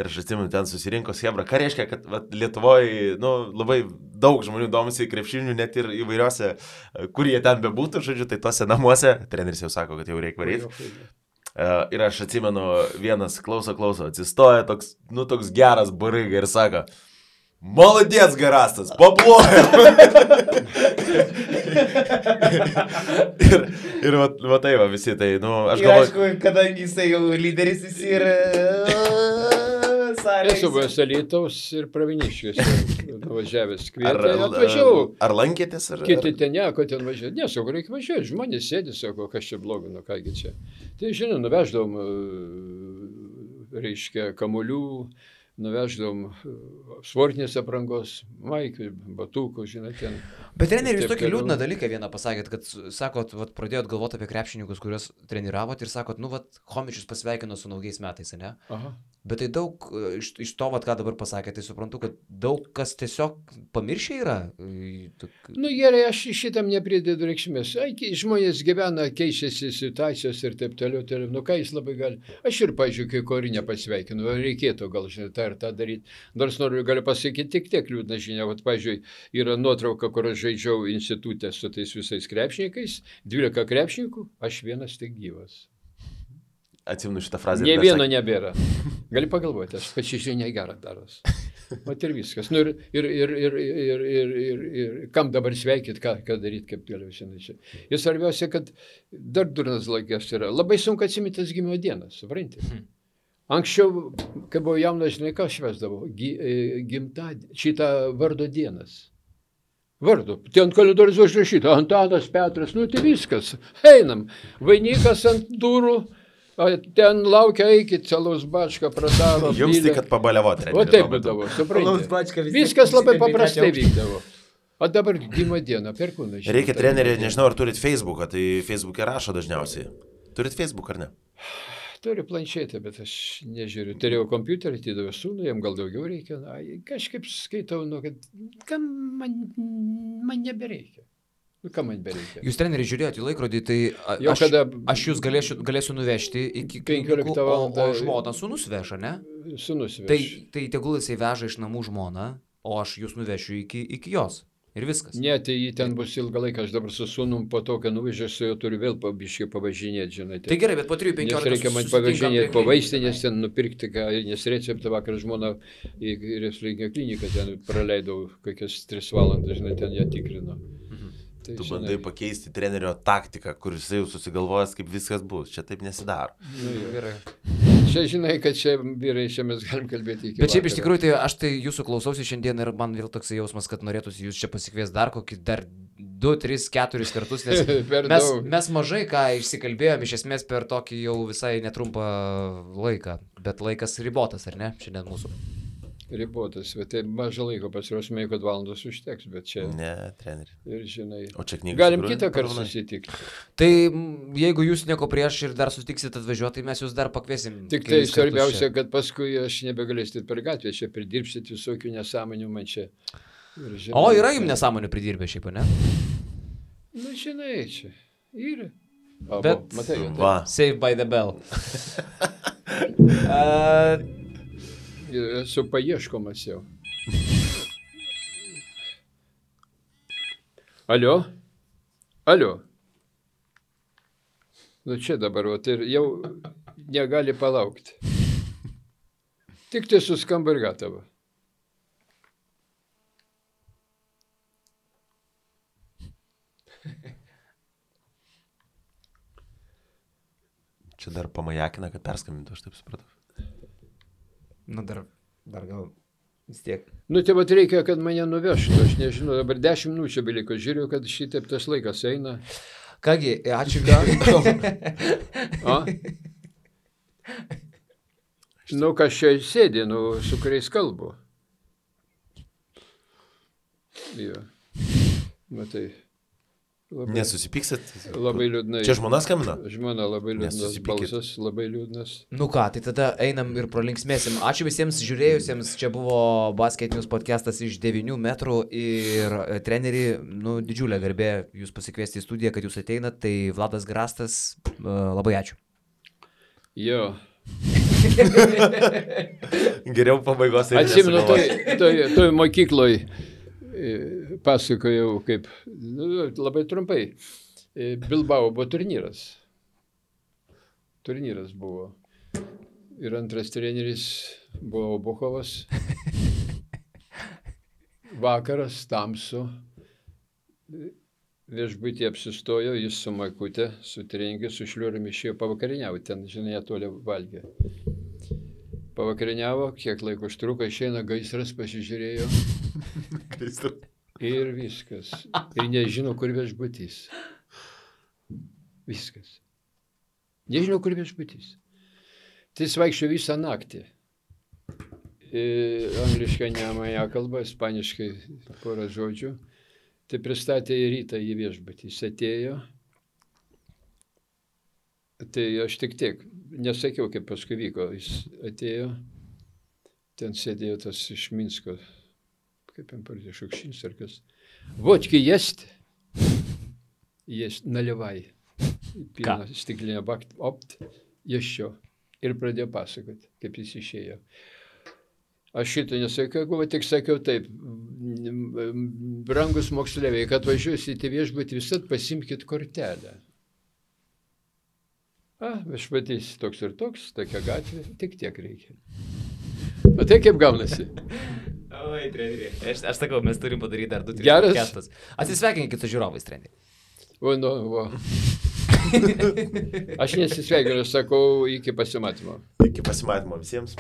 Ir aš atsimenu, ten susirinko Hebra. Ką reiškia, kad Lietuvoje, labai daug žmonių domisi krepšinių, net ir įvairiuose, kur jie ten bebūtų, žodžiu, tai tose namuose. Treneris jau sako, kad jau reikia varyti. Ir aš atsimenu, vienas klauso, atsistoja toks geras bariga ir sako, Maladėts Garastas, paploja. ir va tai va visi, tai, aš galvoju. Aišku, kadangi jisai jau lyderis jis ir Esu buvęs Alytaus ir Praviniškiuose važiavęs kvietė, atvažiavau. Ar lankėtės? Kiti ten nieko ten važiuoti. Ne, sako, reikia važiuoti. Žmonės sėdi, sako, kas čia blogo, kągi čia. Tai, žinau, nuveždavom, reiškia, kamuolių, nuveždavom sportinės aprangos, maikių, batukų, žinai, ten. Bet treneri, jūs tokį liūdną dalyką vieną pasakėt, kad, sakot, pradėjot galvoti apie krepšininkus, kuriuos treniravot ir sakot, Chomičius pasveikino su naujais metais, ne? Aha. Bet tai daug, iš to, ką dabar pasakėte, tai suprantu, kad daug kas tiesiog pamiršę yra. Gerai, aš šitam nepridedu reikšmės. Žmonės gyvena, keičiasi situacijos ir taip toliau. Ką jis labai gali. Aš ir, pažiūrėjau, kai Korinę pasveikinu, reikėtų gal, žinai, tą ir tą daryti. Nors galiu pasakyti tiek liūdna žinia. Pavyzdžiui, yra nuotrauka, kur aš žaidžiau institutę su tais visais krepšininkais, 12 krepšininkų, aš vienas tik gyvas. Atsimenu šitą frazę. Nė vieno nebėra. Gali pagalvoti, aš pačiai žinia gerą daros. Vat ir viskas. Nu, ir kam dabar sveikyt, ką daryti, kaip galiu šiandien čia. Ir svarbiausia, kad dar durnas laikas yra. Labai sunku atsiminti tas gimimo dienas, supranti. Anksčiau, kai buvau jaunas, žinai, ką švesdavau? Šitą vardo dienas. Vardu. Ten kalendorius užrašyta. Antanas, Petras, nu tai viskas. Einam. Vainikas ant durų. Ten laukia, eikit, Alaus bačką pradaro. Jums tai, kad pabaliavot. O taip būdavo, suprantate. Viskas labai paprastai vykdavo. O dabar gimimo diena, perkūnai. Reikia treneriai, nežinau, ar turit Facebooką, tai Facebook'e rašo dažniausiai. Turit Facebook ar ne? Turiu planšetę, bet aš nežiūriu. Turėjau kompiuterį, atidavau sūnų, jam gal daugiau reikia. Na, kažkaip skaitau, kad kam man nebereikia. Nu, kam man bereikia. Jūs, treneri, žiūrėjote į laikrodį, tai aš jūs galėsiu nuvežti iki 15 valandą. O žmona sūnus veža, ne? Sūnus veža. Tai tegul jisai veža iš namų žmoną, o aš jūs nuvešiu iki jos. Ir viskas. Ne, tai jį ten bus ilgą laiką, aš dabar su sūnum po to, kai nuvežiu, su juo turiu vėl pabiškai pavažinėti, žinai. Tai gerai, bet po 3-15 nes reikia man pavažinėti po vaistinės, ten nupirkti, nes receptą vakar žmona į Reslinio kliniką ten praleidau kokias 3 valandas, žinai, ten ją tikrino. Tai, tu bandai pakeisti trenerio taktiką, kur jisai jau susigalvojęs, kaip viskas bus. Čia taip nesidaro. Nu, gerai. Čia žinai, kad čia vyrai, čia mes galim kalbėti iki. Bet šiaip iš tikrųjų, tai aš tai jūsų klausausi šiandien ir man vėl toks jausmas, kad norėtųsi jūs čia pasikvies dar 2, 3, 4 kartus, nes mes mažai ką išsikalbėjom iš esmės per tokį jau visai netrumpą laiką, bet laikas ribotas, ar ne, šiandien mūsų? Ribotas, bet tai mažą laiko pasiruošime, kad valandos užteks, bet čia... Ne, treneri. Ir žinai, o čia knygas. Galim kitą kartą susitikti. Tai jeigu jūs nieko prieš ir dar sutiksit atvažiuoti, tai mes jūs dar pakviesim. Tik tai svarbiausia, kad paskui aš nebegalėsit per gatvę, čia pridirbsit visokių nesąmonių man čia. Ir, žinai, o yra jums nesąmonių pridirbę šiaip, ne? Nu, žinai, čia yra. Bet, matai, va. Save by the bell. Esu paieškomas jau. Alio? Alio? Nu čia dabar, ir jau negali palaukti. Tik tai suskamba ir gatava. Čia dar pamajakina, kad perskambintų, aš taip supratau. Nu, dar gal vis tiek. Nu, tai vat reikia, kad mane nuvežtų, aš nežinau, dabar 10 minučių beliko, žiūriu, kad šitaip tas laikas eina. Kągi, ačiū. Nu, kas čia sėdi, su kuriais kalbu. Jo. Matai. Nesusipyksit? Labai liūdnai. Čia žmona skambina? Žmona labai liūdnas balsas, labai liūdnas. Nu ką, tai tada einam ir pralinksmėsim. Ačiū visiems žiūrėjusiems, čia buvo Basket News podcastas iš 9 metrų ir treneri, didžiulė garbė jūs pasikviesti į studiją, kad jūs ateinat, tai Vladas Grastas, labai ačiū. Jo. Geriau pabaigos. Atsimenu, toj mokykloj pasakojau, kaip, labai trumpai, Bilbao buvo turnyras. Turnyras buvo. Ir antras treneris buvo Obuchovas. Vakaras, tamsu. Viešbutį apsistojo, jis su Makute, su treningiu, su šliuriumi išėjo pavakariniauti. Ten, žinai, toli valgė. Pavakariniavo, kiek laiko užtruko, išeina gaisras, pasižiūrėjo. Ir viskas. Ir nežino, kur viešbutys. Viskas. Nežino, kur viešbutys. Tai jis vaikščio visą naktį. Angliškai ne mane kalba, ispaniškai porą žodžių. Tai pristatė į rytą į viešbutį. Jis atėjo. Tai aš tik tiek, nesakiau, kaip paskui vyko. Jis atėjo, ten sėdėjo tas iš Minsko, kaip jam pardė, Šukšins ar kas. Vodki есть? Есть, наливай. Pilna stiklinė bakt, opt, еще. Ir pradėjo pasakoti, kaip jis išėjo. Aš šitą nesakiau, tik sakiau taip, brangus moksleiviai, kad važiuosite viešbutį, visat pasimkit kortelę. Viešbutys toks ir toks, tokia gatvė, tik tiek reikia. O tai kaip gaunasi? Gerai, treneri. Aš sakau, mes turim padaryti dar 2-3 Geras. podcastus. Atsisveikinkit su žiūrovais, treneri. O, nu, va. Aš nesisveikinu, sakau, iki pasimatymo. Iki pasimatymo visiems.